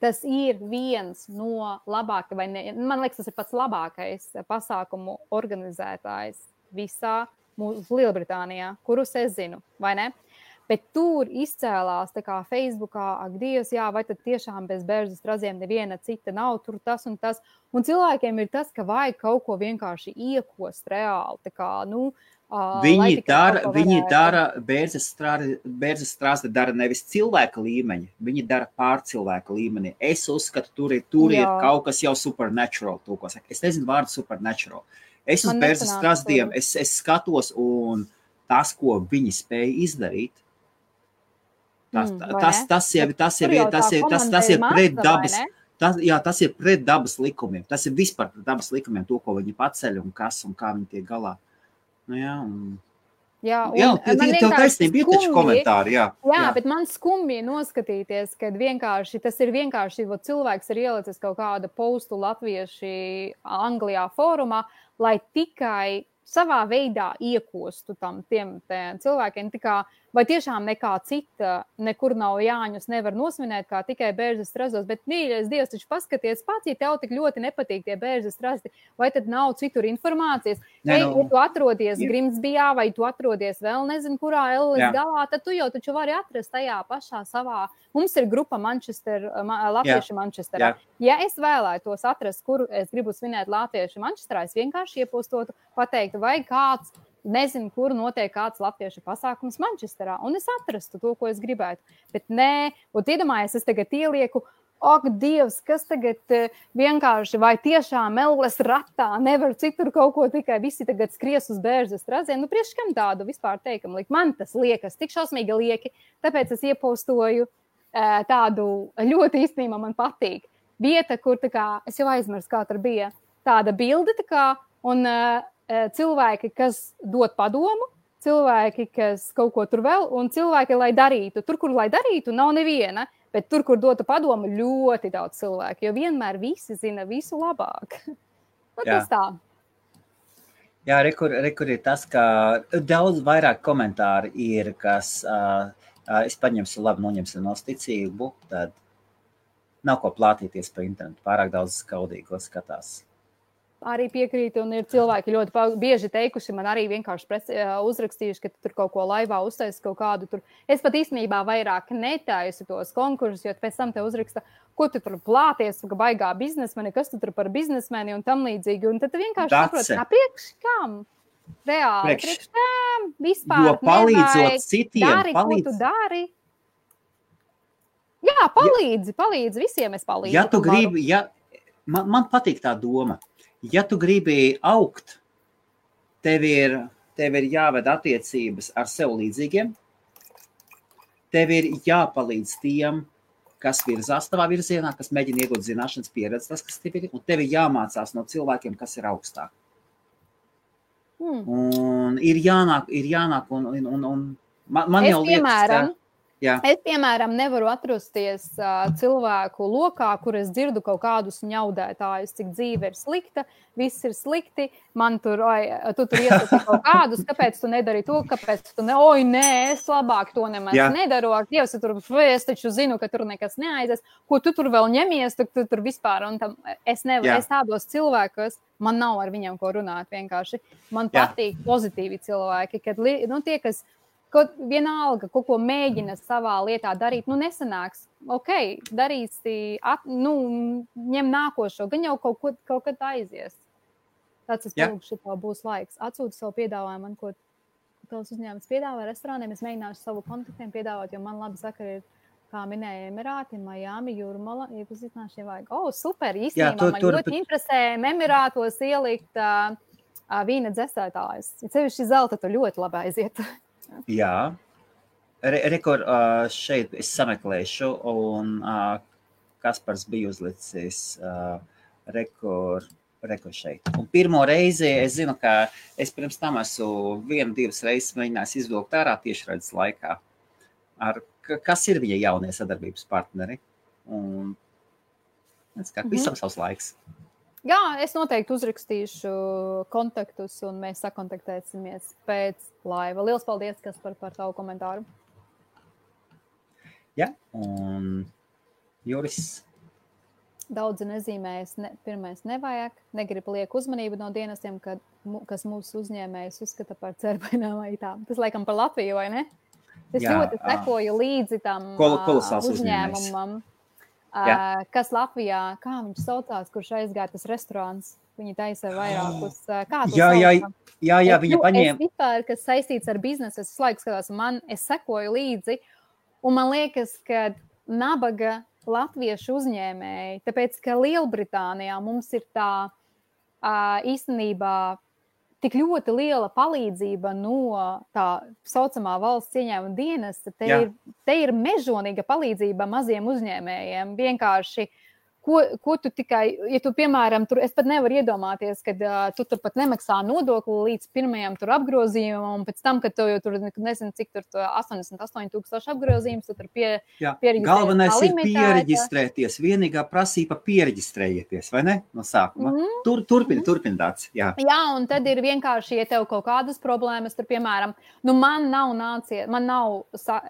Speaker 2: tas ir viens no labākajiem, man liekas, tas ir pats labākais pasākumu organizētājs visā Lielbritānijā, kurus es zinu, vai ne? Bet tur izcēlās tā kā Facebookā, ak, Dievs, jā, vai tad tiešām bez Bērzes Straziem neviena cita nav, tur tas un tas. Un cilvēkiem ir tas, ka vajag kaut ko vienkārši iekost reāli, tā kā,
Speaker 1: Viņi dara, Bērzes Straze dara nevis cilvēka līmeņa, viņi dara pārcilvēka līmenī. Es uzskatu, tur ir kaut kas jau supernatural, es nezinu vārdu supernatural. Es uz Bērzes Strazdiem, es skatos, un tas, ko viņi spēja izdarīt, tas ir pret dabas, tas ir pret dabas likumiem. Tas ir vispār pret dabas likumiem, to, ko viņi paceļ un kas un kā viņi tiek galā. Tev taisnība ir taču komentāri, jā.
Speaker 2: Bet man skumji noskatīties, kad tas ir vienkārši, cilvēks ir ielicis kaut kādu postu latvieši Anglijā fórumā, lai tikai savā veidā iekostu tiem cilvēkiem, vai tiešām nekā cita, nekur nav Jāņus nevar nosvinēt, kā tikai Bērzes Strazos, bet mīļais Dievs, taču paskaties pats, ja tev tik ļoti nepatīk tie Bērzes Strazdi, vai tad nav citur informācijas? Ja tu atrodies Grimsbijā, vai tu atrodies vēl nezinu, kurā Ellis galā, tad tu jau taču vari atrast tajā pašā savā. Mums ir grupa Latvieši Manchesterā. Ja es vēlētos atrast, kur es gribu svinēt Latvieši Manchesterā, es vienkārši iepostotu, pateiktu, vai kāds, nezinu, kur notiek kāds latviešu pasākums Manchesterā, un es atrastu to, ko es gribētu. Bet nē, un iedomājies, es tagad ielieku, ak, Dievs, kas tagad vienkārši, vai tiešām Elles ratā nevar citur kaut ko, tikai visi tagad skries uz Bērzes Straziem. Priekš kam tādu vispār teikumu likt? Man tas liekas tik šausmīgi lieki, tāpēc es iepostoju tādu ļoti īstenībā man patīk. Vieta, kur es jau aizmirsu, kā tur bija, tāda bilde, un cilvēki, kas dod padomu, cilvēki, kas kaut ko tur vēl, un cilvēki, lai darītu. Tur, kur lai darītu, nav neviena, bet tur, kur dotu padomu, ļoti daudz cilvēku, jo vienmēr visi zina visu labāk. Tas tā.
Speaker 1: Jā, rekur ir tas, ka daudz vairāk komentāri ir, kas es paņemšu labi, noņemšu no ticību, tad nav ko plātīties pa internetu, pārāk daudz skaudīgo skatās.
Speaker 2: Arī piekrītu, un ir cilvēki ļoti bieži teikuši, man arī vienkārši uzrakstījuši, ka tur kaut ko laivā uztaisa kaut kādu tur. Es pat īstenībā vairāk netaisu tos konkursus, jo pēc tam te uzraksta, ko tu tur plāties, ka baigā biznesmeni, kas tu tur par biznesmeni un tam līdzīgi. Un tad vienkārši saproti, priekš kam? Reāli, priekš kam? Vispār
Speaker 1: jo palīdzot citiem,
Speaker 2: dari, ko tu dari. Jā, palīdzi, visiem es palīdzu.
Speaker 1: Ja tu gribi, man patīk tā doma. Ja tu gribi augt, tev ir jāved attiecības ar sev līdzīgiem, tev ir jāpalīdz tiem, kas virzās tavā virzienā, kas mēģina iegūt zināšanas pieredzi, tas, kas tev ir, un tev ir jāmācās no cilvēkiem, kas ir augstāk. Un ir jānāk, un man jau liekas,
Speaker 2: Es, piemēram, nevaru atrasties cilvēku lokā, kur es dzirdu kaut kādus ņaudētājus, cik dzīve ir slikta, viss ir slikti, man tu tur iesaki kaut kādus, kāpēc tu nedari to, kāpēc tu es labāk to nemaz nedaru, Dievs, es taču zinu, ka tur nekas neaizies, ko tu tur vēl ņemies, tu tur vispār, un tam es nevaru, es tādos cilvēkos, man nav ar viņiem ko runāt vienkārši, man patīk pozitīvi cilvēki, kad, tie, kas vienalga, kaut ko mēģina savā lietā darīt, nesanāks. Darīsi, ņem nākošo, gan jau kaut kad aizies. Tāds es lūkšu, tev būs laiks. Atsūti savu piedāvājumu, man ko tavs uzņēmums piedāvā restorāniem. Es mēģināšu savu kontaktiem piedāvāt, jo man labi sakari ir, kā minēja, Emirāti, Miami, Jūrmala, iepazīstināšu, ja vajag. Super, īstenībā man ļoti interesē Emirātos ielikt vīna dzesētājus. Ja sevišķi zelta, tu ļoti labi aiziet.
Speaker 1: Jā. Rekord šeit es sameklēšu, un Kaspars bija uzlicis rekord šeit. Un pirmo reizi es zinu, ka es pirms tam esmu 1-2 reizes mēģinājis izvilkt ārā tiešraides laikā. Kas ir viņa jaunie sadarbības partneri? Un visam savs laiks.
Speaker 2: Jā, es noteikti uzrakstīšu kontaktus, un mēs sakontaktēsimies pēc laiva. Liels paldies, Kaspar, par tavu komentāru.
Speaker 1: Jā, un Juris.
Speaker 2: Daudzi nezīmējas, pirmais nevajag, negrib liek uzmanību no dienestiem, kas mūsu uzņēmējus uzskata par cerbaināmajām. Tas laikam par Latviju, vai ne? Es ļoti sekoju līdzi tam uzņēmumam. Kas Latvijā, kā viņš saucās, kurš aizgāja tas restorāns, viņi taisa vairākus, kā tu saucam?
Speaker 1: Jā, viņa paņēma.
Speaker 2: Es vispār, kas saistīts ar biznesu, es laiku skatās, es sekoju līdzi, un man liekas, ka nabaga latviešu uzņēmēji, tāpēc, ka Lielbritānijā mums ir tā īstenībā tik ļoti liela palīdzība no tā saucamā valsts ieņēmuma dienesta. Te ir mežonīga palīdzība maziem uzņēmējiem. Vienkārši, ko tu tikai, ja tu, piemēram, tur, es pat nevaru iedomāties, kad tu tur pat nemaksā nodokli līdz pirmajam tur apgrozījumam, un pēc tam, kad tu jau tur, nezinu, cik tur 88,000 apgrozījums, tu tur pieregistrējies.
Speaker 1: Galvenais ir pieregistrēties, vienīgā prasība pieregistrējieties, vai ne? No sākuma. Turpin tāds, jā. Jā,
Speaker 2: un tad ir vienkārši, ja tev kaut kādas problēmas, tur, piemēram, man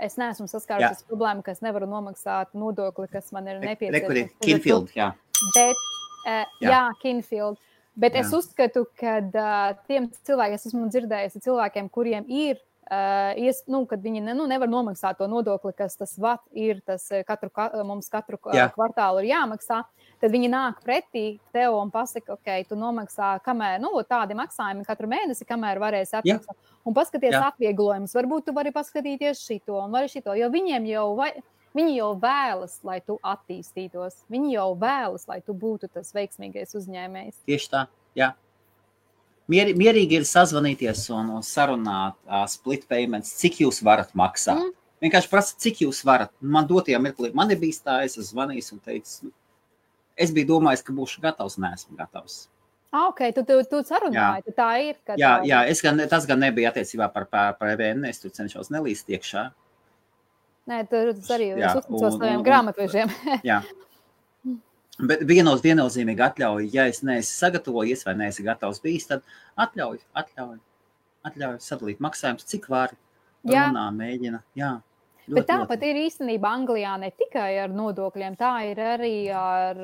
Speaker 2: es neesmu saskārusies problēmu, ka es nevaru nomaksāt nodokli, kas man ir nepieciešams.
Speaker 1: Jā.
Speaker 2: Bet, Kinfield. Bet es uzskatu, ka tiem cilvēkiem, es esmu dzirdējusi cilvēkiem, kuriem ir, kad viņi nevar nomaksāt to nodokli, kas tas VAT ir, tas mums katru kvartālu ir jāmaksā, tad viņi nāk pretī tev un pasaka, ok, tu nomaksā, kamēr, tādi maksājumi katru mēnesi, kamēr varēsi atmaksāt. Un paskaties atvieglojumus, varbūt tu vari paskatīties šito un vari šito, jo viņi jau vēlas, lai tu attīstītos. Viņi jau vēlas, lai tu būtu tas veiksmīgais uzņēmējs.
Speaker 1: Tieši tā, jā. Mierīgi ir sazvanīties un sarunāt split payments, cik jūs varat maksāt. Vienkārši prasa, cik jūs varat. Man dotajā mirklī, man ir bijis tā, es zvanījis un teicu, es biju domājis, ka būšu gatavs, neesmu gatavs.
Speaker 2: Ok, tu sarunāji, tā ir.
Speaker 1: Jā, tas gan nebija attiecībā par EVN, es tur cenšos nelīst iekšā.
Speaker 2: Nē, tas arī es uzticos taviem grāmatvežiem.
Speaker 1: Jā. Bet viennozīmīgi atļauj, ja es neesmu sagatavojies vai neesmu gatavs bijis, tad atļauj sadalīt maksājumus, cik vari. Runā, mēģina. Jā.
Speaker 2: Bet tāpat ir īstenībā Anglijā ne tikai ar nodokļiem, tā ir arī ar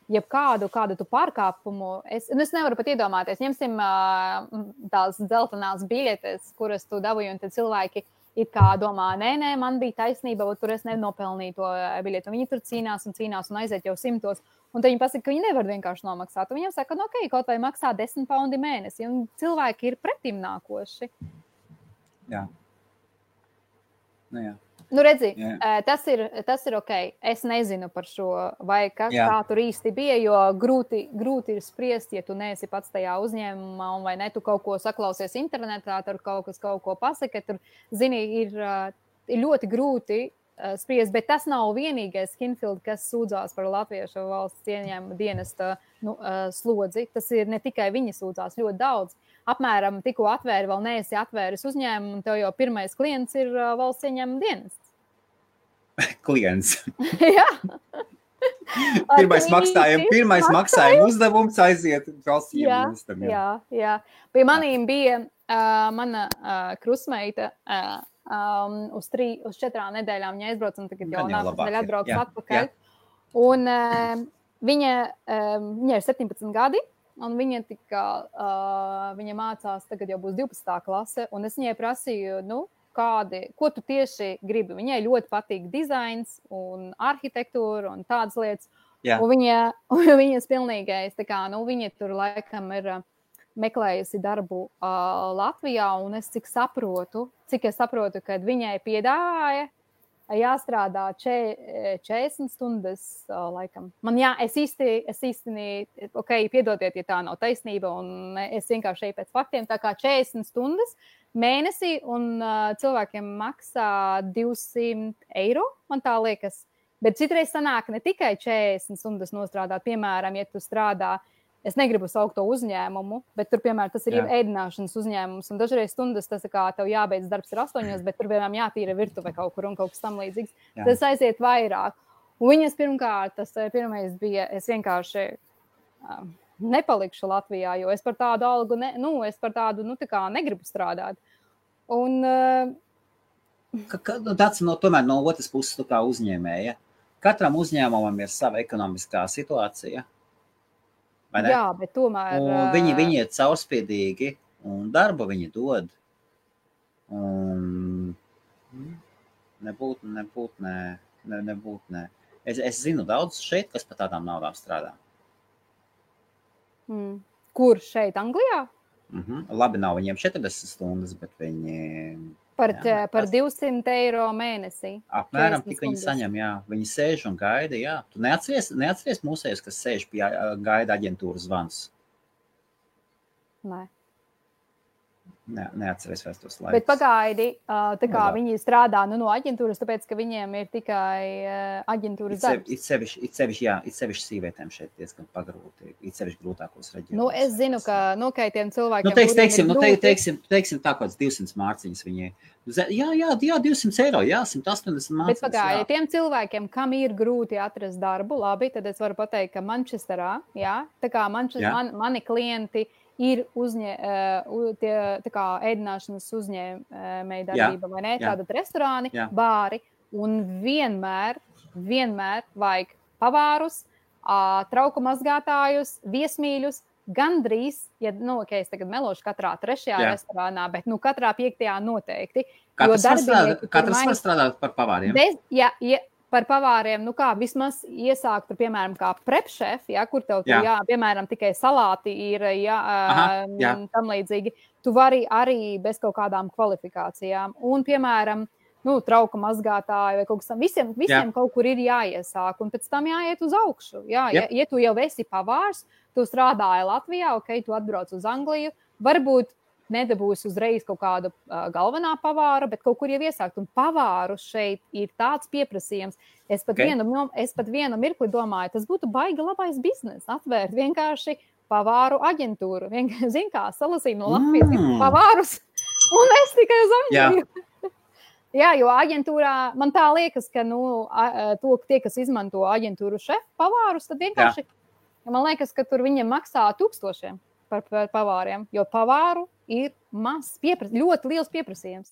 Speaker 2: jebkādu tu pārkāpumu. Es nevaru pat iedomāties. Ņemsim tās dzeltenās biļetes, kuras tu dabūji, un tad cilvēki it kā domā, nē, man bija taisnība, tur es nenopelnīju to biļeti. Un viņi tur cīnās un aiziet jau 100. Un tad viņi pasaka, ka viņi nevar vienkārši nomaksāt. Un viņiem saka, ok, kaut vai maksā 10 paundi mēnesi. Un cilvēki ir pretim nākoši.
Speaker 1: Jā. Jā.
Speaker 2: Redzi, tas ir ok. Es nezinu par šo, vai kas tā tur īsti bija, jo grūti ir spriest, ja tu neesi pats tajā uzņēmumā, un vai ne, tu kaut ko saklausies internetā, tur kaut ko pasaka, tur, zini, ir ļoti grūti spriest, bet tas nav vienīgais Kinfield, kas sūdzās par latviešu valsts ieņēmuma dienesta slodzi. Tas ir ne tikai viņi sūdzās, ļoti daudz. Apmēram tikko atvēri, vēl neesi atvēris uzņēmumu, un tev jau pirmais klients ir valsts ieņēmuma dienests.
Speaker 1: Klients.
Speaker 2: Jā.
Speaker 1: Pirmais maksājuma uzdevums aiziet valsts ieņēmuma dienestam.
Speaker 2: Jā. Pie manīm bija mana krusmeita uz 4 nedēļām viņa aizbrauca, un tagad jau nākamnedēļ atbrauks atpakaļ. Un viņa ir 17 gadi. Un viņa mācās, tagad jau būs 12. klase, un es viņai prasīju, ko tu tieši gribi. Viņai ļoti patīk dizains un arhitektūra un tādas lietas.
Speaker 1: Jā.
Speaker 2: Un viņas pilnīgais, viņa tur laikam ir meklējusi darbu Latvijā, un cik es saprotu, kad viņai piedāvāja jāstrādā 40 stundas laikam. Es īsti, piedodiet, ja tā nav taisnība, un es vienkārši eju pēc faktiem, tā kā 40 stundas mēnesī, un cilvēkiem maksā 200 eiro, man tā liekas. Bet citreiz sanāk ne tikai 40 stundas nostrādāt, piemēram, ja tu strādā, es negribu saukt to uzņēmumu, bet tur, piemēram, tas ir ēdināšanas uzņēmums, un dažreiz stundas tas kā tev jābeidz darbs ir 8, bet tur, piemēram, jātīra virtuve kaut kur un kaut kas tam līdzīgs. Tas aiziet vairāk. Un viņas pirmkārt, tas pirmais bija, es vienkārši nepalikšu Latvijā, jo es par tādu algu, tā kā negribu strādāt. Un...
Speaker 1: Tāds tomēr no otras puses tu kā uzņēmēja. Katram uzņēmumam ir sava ekonomiskā situācija.
Speaker 2: Jā, bet tomēr...
Speaker 1: Un viņi ir caurspīdīgi, un darbu viņi dod. Un nebūt, nē. Es zinu daudz šeit, kas par tādām naudām strādā.
Speaker 2: Kur šeit, Anglijā?
Speaker 1: Labi, nav viņiem 40 stundas, bet viņi...
Speaker 2: Par 200 eiro mēnesī.
Speaker 1: Apmēram tik viņi saņem, jā. Viņi sēž un gaida, jā. Tu neatceries mūsējus, kas sēž pie gaida aģentūras zvans?
Speaker 2: Nē.
Speaker 1: Neatceries vairs tos laikus.
Speaker 2: Bet pagaidi, tā kā viņi strādā no aģentūras, tāpēc, ka viņiem ir tikai aģentūras darbs.
Speaker 1: It sevišķi sīvietēm šeit diezgan pagrūti, it sevišķi grūtākos reģionos.
Speaker 2: Es zinu, ka nokaitiem cilvēkiem...
Speaker 1: Teiksim tā kāds 200 mārciņas viņai. Jā, 200 eiro, jā, 180 mārciņas.
Speaker 2: Bet pagaidi, tiem cilvēkiem, kam ir grūti atrast darbu, labi, tad es varu pateikt, ka Manchesterā, jā, tā kā mani klienti ir ēdināšanas uzņēmēja darbība, vai ne? Tātad restorāni, bāri, un vienmēr vajag pavārus, trauku mazgātājus, viesmīļus, gandrīz, es tagad melošu katrā 3. restorānā, bet katrā 5. noteikti.
Speaker 1: Katrs var strādāt par pavāriem?
Speaker 2: Par pavāriem, vismaz iesākt, tur, piemēram, kā prepšef, kur tev, piemēram, tikai salāti ir, tam līdzīgi. Tu vari arī bez kaut kādām kvalifikācijām. Un, piemēram, trauka mazgātāju vai kaut kas tam. Visiem kaut kur ir jāiesāk, un pēc tam jāiet uz augšu. Ja tu jau esi pavārs, tu strādāji Latvijā, tu atbrauc uz Angliju, varbūt nedabūs uzreiz kaut kādu galvenā pavāra, bet kaut kur jau iesākt. Un pavāru šeit ir tāds pieprasījums. Es pat vienu mirkli domāju, tas būtu baigi labais biznes, atvērt vienkārši pavāru aģentūru. Zin kā, salasīju no Latvijas pavārus, un es tikai uz Angliju. Jā, jo aģentūrā man tā liekas, ka tie, kas izmanto aģentūru šefu pavārus, tad vienkārši, man liekas, ka tur viņiem maksā 1000 par pavāriem, jo pavāru ir ļoti liels pieprasījums,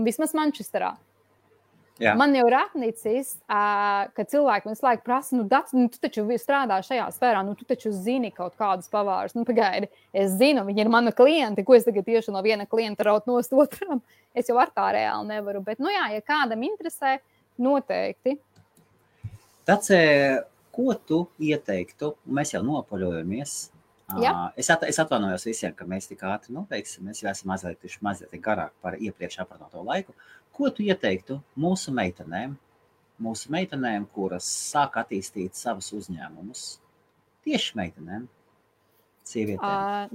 Speaker 2: vismaz Manchesterā.
Speaker 1: Jā.
Speaker 2: Man jau ir atnicis, ka cilvēki visu laiku prasa, tu taču strādā šajā sfērā, tu taču zini kaut kādus pavārus. Pagaidi, es zinu, viņi ir mani klienti, ko es tagad tieši no viena klienta raut nost otram. Es jau ar tā reāli nevaru, bet, ja kādam interesē, noteikti.
Speaker 1: Tāds, ko tu ieteiktu, mēs jau nopaļojamies. Es atvainojos visiem, ka mēs tik ātri noteiksim, mēs jau esam mazliet garāk par iepriekš aprunāto laiku. Ko tu ieteiktu mūsu meitenēm, kuras sāk attīstīt savus uzņēmumus? Tieši meitenēm, sievietēm.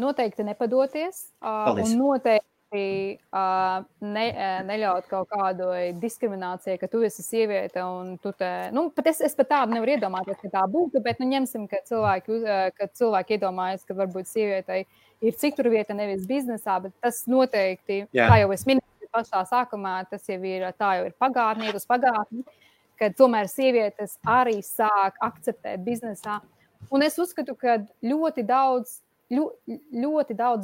Speaker 2: Noteikti nepadoties.
Speaker 1: Paldies.
Speaker 2: Un noteikti neļaut kaut kādu diskrimināciju, ka tu esi sieviete un tu pat es pat tādu nevaru iedomāties, ka tā būtu, bet ņemsim, ka cilvēki iedomājas, ka varbūt sievietei ir citur vieta, nevis biznesā, bet tas noteikti, kā jau es minēju pašā sākumā, tas jau ir pagātni, iet uz pagātni, ka tomēr sievietes arī sāk akceptēt biznesā. Un es uzskatu, ka ļoti daudz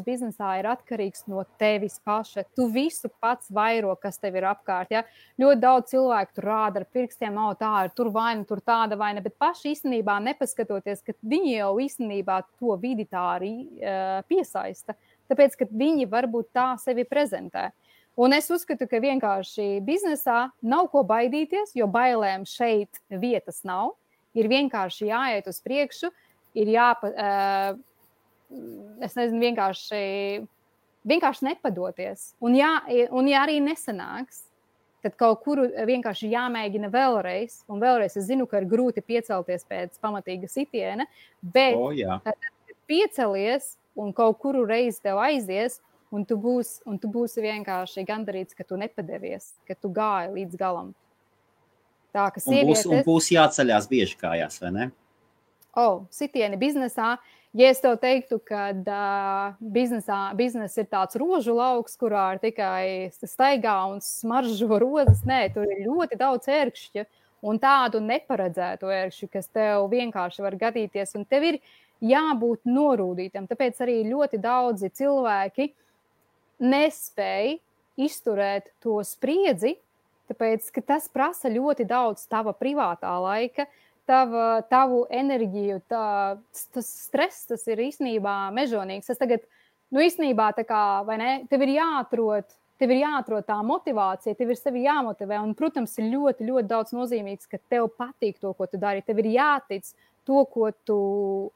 Speaker 2: biznesā ir atkarīgs no tevis paša. Tu visu pats vairo, kas tev ir apkārt. Ja? Ļoti daudz cilvēku tur rāda ar pirkstiem, tā ir tur vaina, tur tāda vaina, bet paši īstenībā nepaskatoties, ka viņi jau īstenībā to vidi tā arī piesaista. Tāpēc, ka viņi varbūt tā sevi prezentē. Un es uzskatu, ka vienkārši biznesā nav ko baidīties, jo bailēm šeit vietas nav. Ir vienkārši jāiet uz priekšu, ir vienkārši nepadoties. Un ja arī nesanāks, tad kaut kur vienkārši jāmēģina vēlreiz. Un vēlreiz es zinu, ka ir grūti piecelties pēc pamatīga sitiena, bet kad piecelies un kaut kuru reizi tev aizies, un tu būsi vienkārši gandarīts, ka tu nepadevies, ka tu gāji līdz galam. Tā, ka sievietes...
Speaker 1: Un būs jāceļās bieži kājās, vai ne?
Speaker 2: Sitieni biznesā. Ja es tev teiktu, ka biznes ir tāds rožu lauks, kurā ir tikai staigā un smaržo rozes, nē, tur ir ļoti daudz ērkšķu un tādu neparedzētu ērkšķu, kas tev vienkārši var gadīties, un tev ir jābūt norūdītam. Tāpēc arī ļoti daudzi cilvēki nespēja izturēt to spriedzi, tāpēc, ka tas prasa ļoti daudz tava privātā laika, tavu enerģiju, tas stress, tas ir īstenībā mežonīgs. Tas tagad, īstenībā tā kā, vai ne, tev ir jāatrod tā motivācija, tev ir sevi jāmotivē, un, protams, ir ļoti, ļoti daudz nozīmīgs, ka tev patīk to, ko tu dari, tev ir jātic to, ko tu,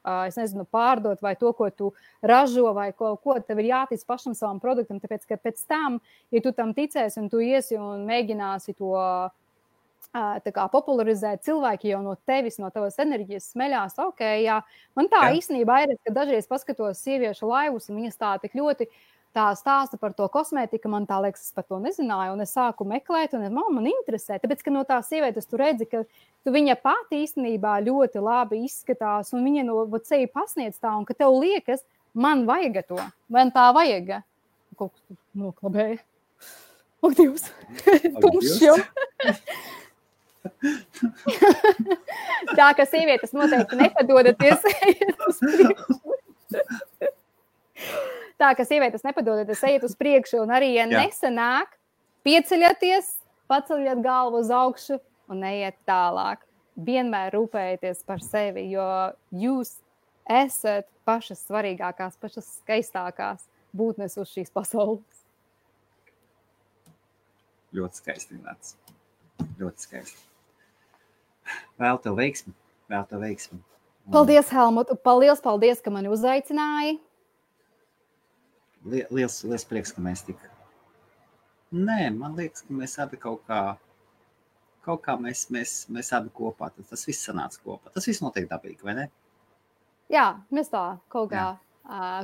Speaker 2: pārdot, vai to, ko tu ražo, vai ko, tev ir jātic pašam savam produktam, tāpēc, ka pēc tam, ja tu tam ticēsi un tu iesi un mēģināsi to popularizēt, cilvēki jau no tevis, no tavas enerģijas smeļās, jā. Man tā īstenībā ir, ka dažreiz paskatos sieviešu laivus, un viņas tā tik ļoti tā stāsta par to kosmētiku, man tā liekas, es par to nezināju, un es sāku meklēt, un man interesē, tāpēc, ka no tās sievietes tu redzi, ka viņa pati īstenībā ļoti labi izskatās, un viņa no sevi pasniedz tā, un ka tev liekas, man vajag to, man tā vajag. Kaut kas noklabēja. Ak, Dievs! Tumšs jau! Tā, ka sievietes noteikti nepadodaties uz priekšu. Tā, ka sievietes nepadodaties ejiet uz priekšu, un arī, ja nesanāk, pieceļaties, paceļat galvu uz augšu un ejiet tālāk. Vienmēr rūpējieties par sevi, jo jūs esat pašas svarīgākās, pašas skaistākās būtnes uz šīs pasaules.
Speaker 1: Ļoti skaisti, Nāc. Ļoti skaisti. Vēl tev veiksmi.
Speaker 2: Paldies, Helmut. Paldies, ka mani uzaicināji.
Speaker 1: Liels prieks, ka mēs tik... Nē, man liekas, ka mēs abi kaut kā mēs abi kopā. Tas viss sanāca kopā. Tas viss notiek dabīgi, vai ne?
Speaker 2: Jā, mēs tā kaut kā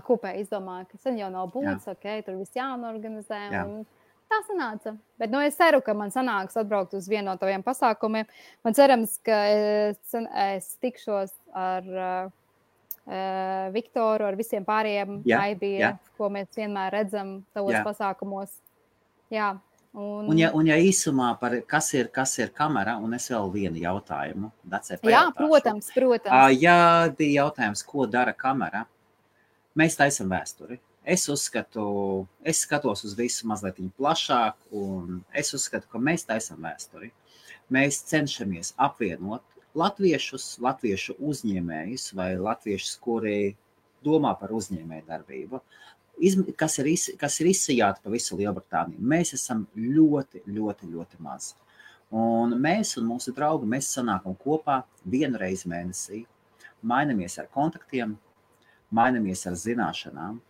Speaker 2: kopēji izdomājam, ka sen jau nav būts, tur viss jānorganizē. Un... Tā sanāca. Bet es ceru, ka man sanāks atbraukt uz vienu no taviem pasākumiem. Man cerams, ka es tikšos ar Viktoru, ar visiem pārējiem Aibija, ko mēs vienmēr redzam tavos pasākumos. Jā. Un ja
Speaker 1: īsumā par kas ir kamera, un es vēl vienu jautājumu.
Speaker 2: Jā, protams.
Speaker 1: Jā, bija jautājums, ko dara kamera. Mēs taisam vēsturi. Es skatos uz visu mazliet plašāk, un es uzskatu, ka mēs taisam vēsturi. Mēs cenšamies apvienot latviešu uzņēmējus vai latviešus, kuri domā par uzņēmēju darbību, kas ir izsajāti pa visu Lielbritāniju. Mēs esam ļoti, ļoti, ļoti mazi. Un mēs un mūsu draugi, mēs sanākam kopā vienu reizi mēnesī, mainamies ar kontaktiem, mainamies ar zināšanām.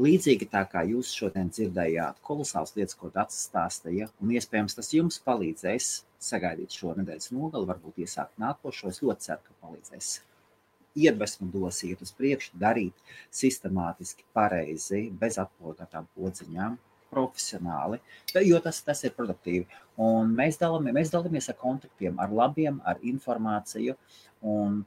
Speaker 1: Līdzīgi tā kā jūs šodien dzirdējāt kolosāls lietas, ko Dats stāstīja, un iespējams tas jums palīdzēs sagaidīt šo nedēļas nogali, varbūt iesākt nākošo. Es ļoti ceru, ka palīdzēs. Iedvesmu dos iet uz priekšu, darīt sistemātiski, pareizi, bez atpogātām podziņām, profesionāli, jo tas ir produktīvi. Un mēs dalāmies ar kontaktiem, ar labiem, ar informāciju, un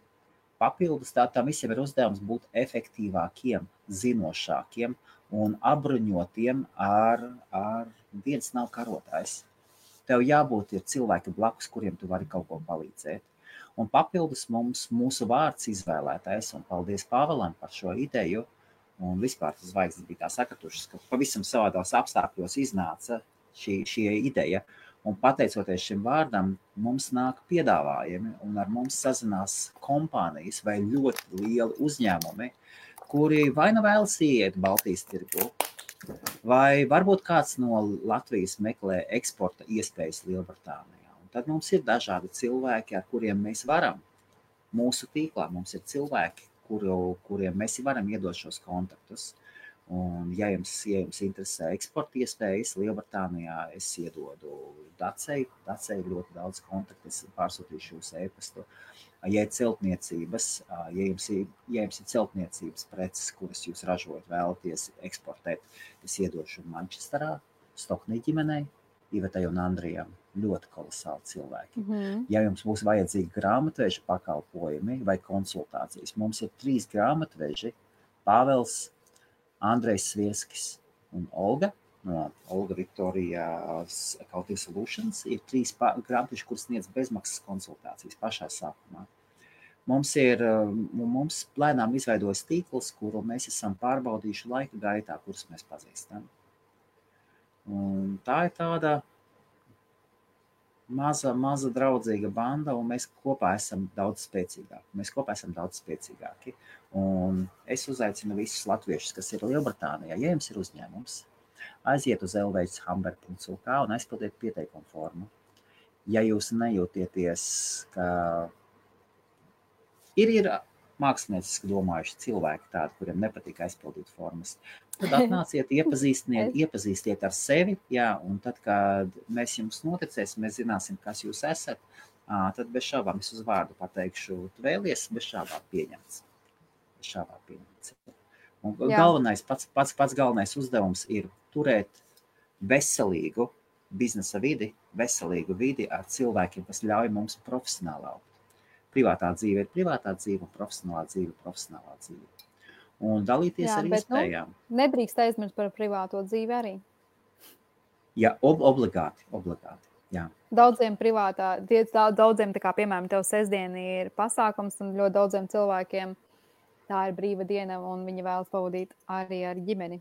Speaker 1: papildus tam visiem ir uzdevums būt efektīvākiem, zinošākiem un apbruņotiem ar viens nav karotājs. Tev jābūt ir cilvēki blakus, kuriem tu vari kaut ko palīdzēt. Un papildus mūsu vārds izvēlētais, un paldies Pāvēlam par šo ideju, un vispār tas zvaigznes bija tā sakratušas, ka pavisam savādās apstākļos iznāca šī ideja. Un pateicoties šim vārdam, mums nāk piedāvājumi, un ar mums sazinās kompānijas vai ļoti lieli uzņēmumi, kuri vai nu vēlas iet Baltijas tirgu, vai varbūt kāds no Latvijas meklē eksporta iespējas Lielbritānijā. Un tad mums ir dažādi cilvēki, ar kuriem mēs varam. Mūsu tīklā mums ir cilvēki, kuriem mēs varam iedot šos kontaktus. Un, ja jums interesē eksporta iespējas Lielbritānijā, es iedodu Dacei ļoti daudz kontaktu, es pārsūtīšu jūsu e-pastu. Ja ir celtniecības, ja jums ir celtniecības preces, kuras jūs ražojat, vēlaties eksportēt, es iedošu Manchesterā, Stoknī ģimenei, Ivetai un Andrijam, ļoti kolosāli cilvēki. Ja jums būs vajadzīgi grāmatveža pakalpojumi vai konsultācijas, mums ir 3 grāmatveži, Pāvels, Andrejs Svieskis un Olga no Olga Viktorijas Accounting Solutions. Ir 3 grāmatveži, kuras sniedz bezmaksas konsultācijas pašā sākumā. Mums plēnām izveidojas tīkls, kuru mēs esam pārbaudījuši laika gaitā, kurus mēs pazīstam. Un tā ir tāda maza draudzīga banda, un mēs kopā esam daudz spēcīgāki. Un es uzaicinu visus latviešus, kas ir Lielbritānijā, ja jums ir uzņēmums, aiziet uz elveidshamber.lk un aizpildiet pieteikumu formu. Ja jūs nejūtieties, ka ir mākslinieciski domājuši cilvēki tādi, kuriem nepatīk aizpildīt formas, tad atnāciet, iepazīstiet ar sevi, jā, un tad, kad mēs jums noticēsim, mēs zināsim, kas jūs esat, tad bez šābām es uz vārdu pateikšu, tu vēlies, bez šābām pieņemts. Un galvenais, pats galvenais uzdevums ir turēt veselīgu biznesa vidi, veselīgu vidi ar cilvēkiem, kas ļauj mums profesionāli augt. Privātā dzīve ir privātā dzīve, un profesionālā dzīve. Un dalīties ar iespējām.
Speaker 2: Nedrīkst aizmirst par privāto dzīvi arī.
Speaker 1: Jā, obligāti, jā.
Speaker 2: Daudziem tā kā, piemēram, tev sestdiena ir pasākums, un ļoti daudziem cilvēkiem tā ir brīva diena, un viņi vēlas pavadīt arī ar ģimeni.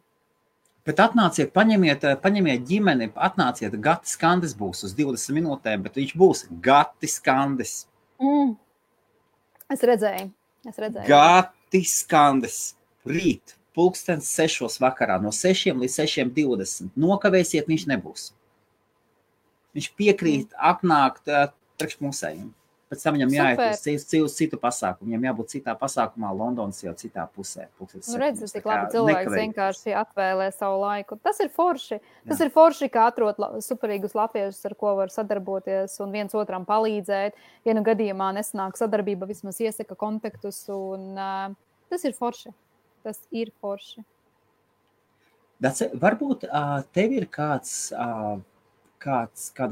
Speaker 1: Bet atnāciet, paņemiet ģimeni, atnāciet, Gatis Kandis būs uz 20 minūtēm, bet viņš būs Gatis Kandis.
Speaker 2: Es redzēju.
Speaker 1: Gatis Kandis. Rīt, 6:00 vakarā, no 6 līdz 6:20. Nokavēsiet, viņš nebūs. Viņš piekrīt apnākt priekš musējiem. Pēc tam viņam jāiet uz citu pasākumu. Viņam jābūt citā pasākumā, Londonas jau citā pusē.
Speaker 2: Redzi, cik labi cilvēks vienkārši atvēlē savu laiku. Tas ir forši. Tas ir forši, ka atrod superīgus latviešus, ar ko var sadarboties un viens otram palīdzēt. Ja nu gadījumā nesanāk sadarbība, vismaz iesaka kontaktus. Un, tas ir forši.
Speaker 1: Dace, varbūt tev ir kāda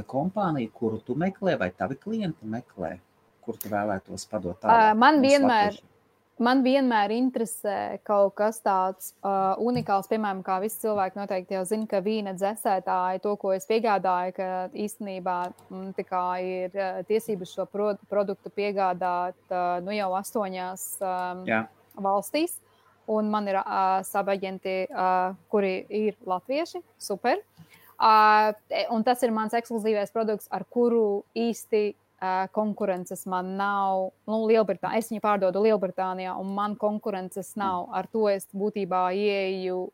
Speaker 1: kompānija, kuru tu meklē, vai tavi klienti meklē, kur tu vēlētos padot tālāk?
Speaker 2: Man vienmēr interesē kaut kas tāds unikāls, piemēram, kā visi cilvēki noteikti jau zina, ka vīna dzesētāji, to, ko es piegādāju, ka īstenībā tā kā ir tiesības šo produktu piegādāt jau 8 valstīs. Un man ir sabaģenti, kuri ir latvieši, super. Un tas ir mans ekskluzīvais produkts, ar kuru īsti konkurences man nav. Es viņu pārdodu Lielbritānijā, un man konkurences nav. Ar to es būtībā ieeju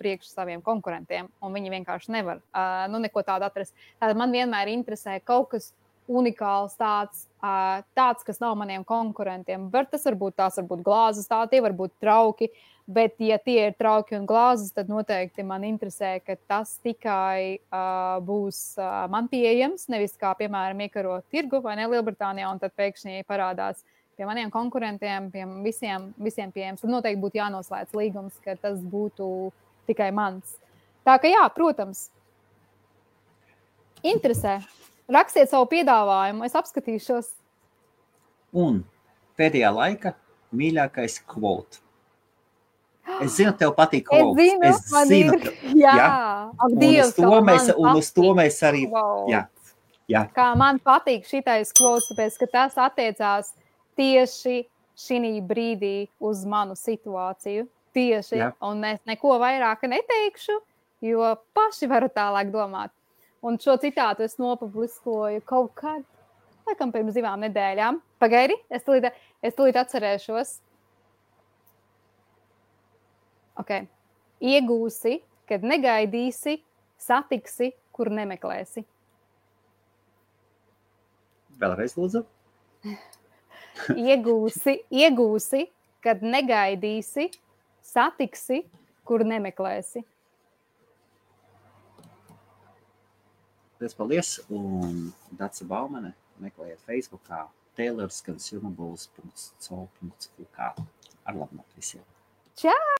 Speaker 2: priekš saviem konkurentiem, un viņi vienkārši nevar neko tādu atrast. Tātad man vienmēr interesē kaut kas unikāls, tāds, kas nav maniem konkurentiem. Tās var būt glāzes, tie var būt trauki, bet ja tie ir trauki un glāzes, tad noteikti man interesē, ka tas tikai būs man pieejams, nevis kā, piemēram, iekarot tirgu vai ne Lielbritānijā, un tad pēkšņi parādās pie maniem konkurentiem, pie visiem pieejams. Tad noteikti būtu jānoslēdz līgums, ka tas būtu tikai mans. Tā ka jā, protams, interesē. Rakstiet savu piedāvājumu, es apskatīšos.
Speaker 1: Un pēdējā laika mīļākais quote. Es zinu, tev patīk quotes.
Speaker 2: Es zinu. Jā.
Speaker 1: Un uz to mēs arī... Jā.
Speaker 2: Kā man patīk šitais quotes, tāpēc, ka tas attiecās tieši šī brīdī uz manu situāciju. Tieši. Jā. Un es neko vairāk neteikšu, jo paši varu tālāk domāt. Un šo citātu es nopubliskoju kaut kad, laikam pirms 2 nedēļām. Pagaidi, es tūlīt atcerēšos. Ok. Iegūsi, kad negaidīsi, satiksi, kur nemeklēsi.
Speaker 1: Vēlreiz lūdzu.
Speaker 2: Iegūsi, kad negaidīsi, satiksi, kur nemeklēsi.
Speaker 1: Paldies, un Dace Baumane meklējiet Facebookā tailorsconsumables.co.uk. Ar labu nakti visiem!
Speaker 2: Čau!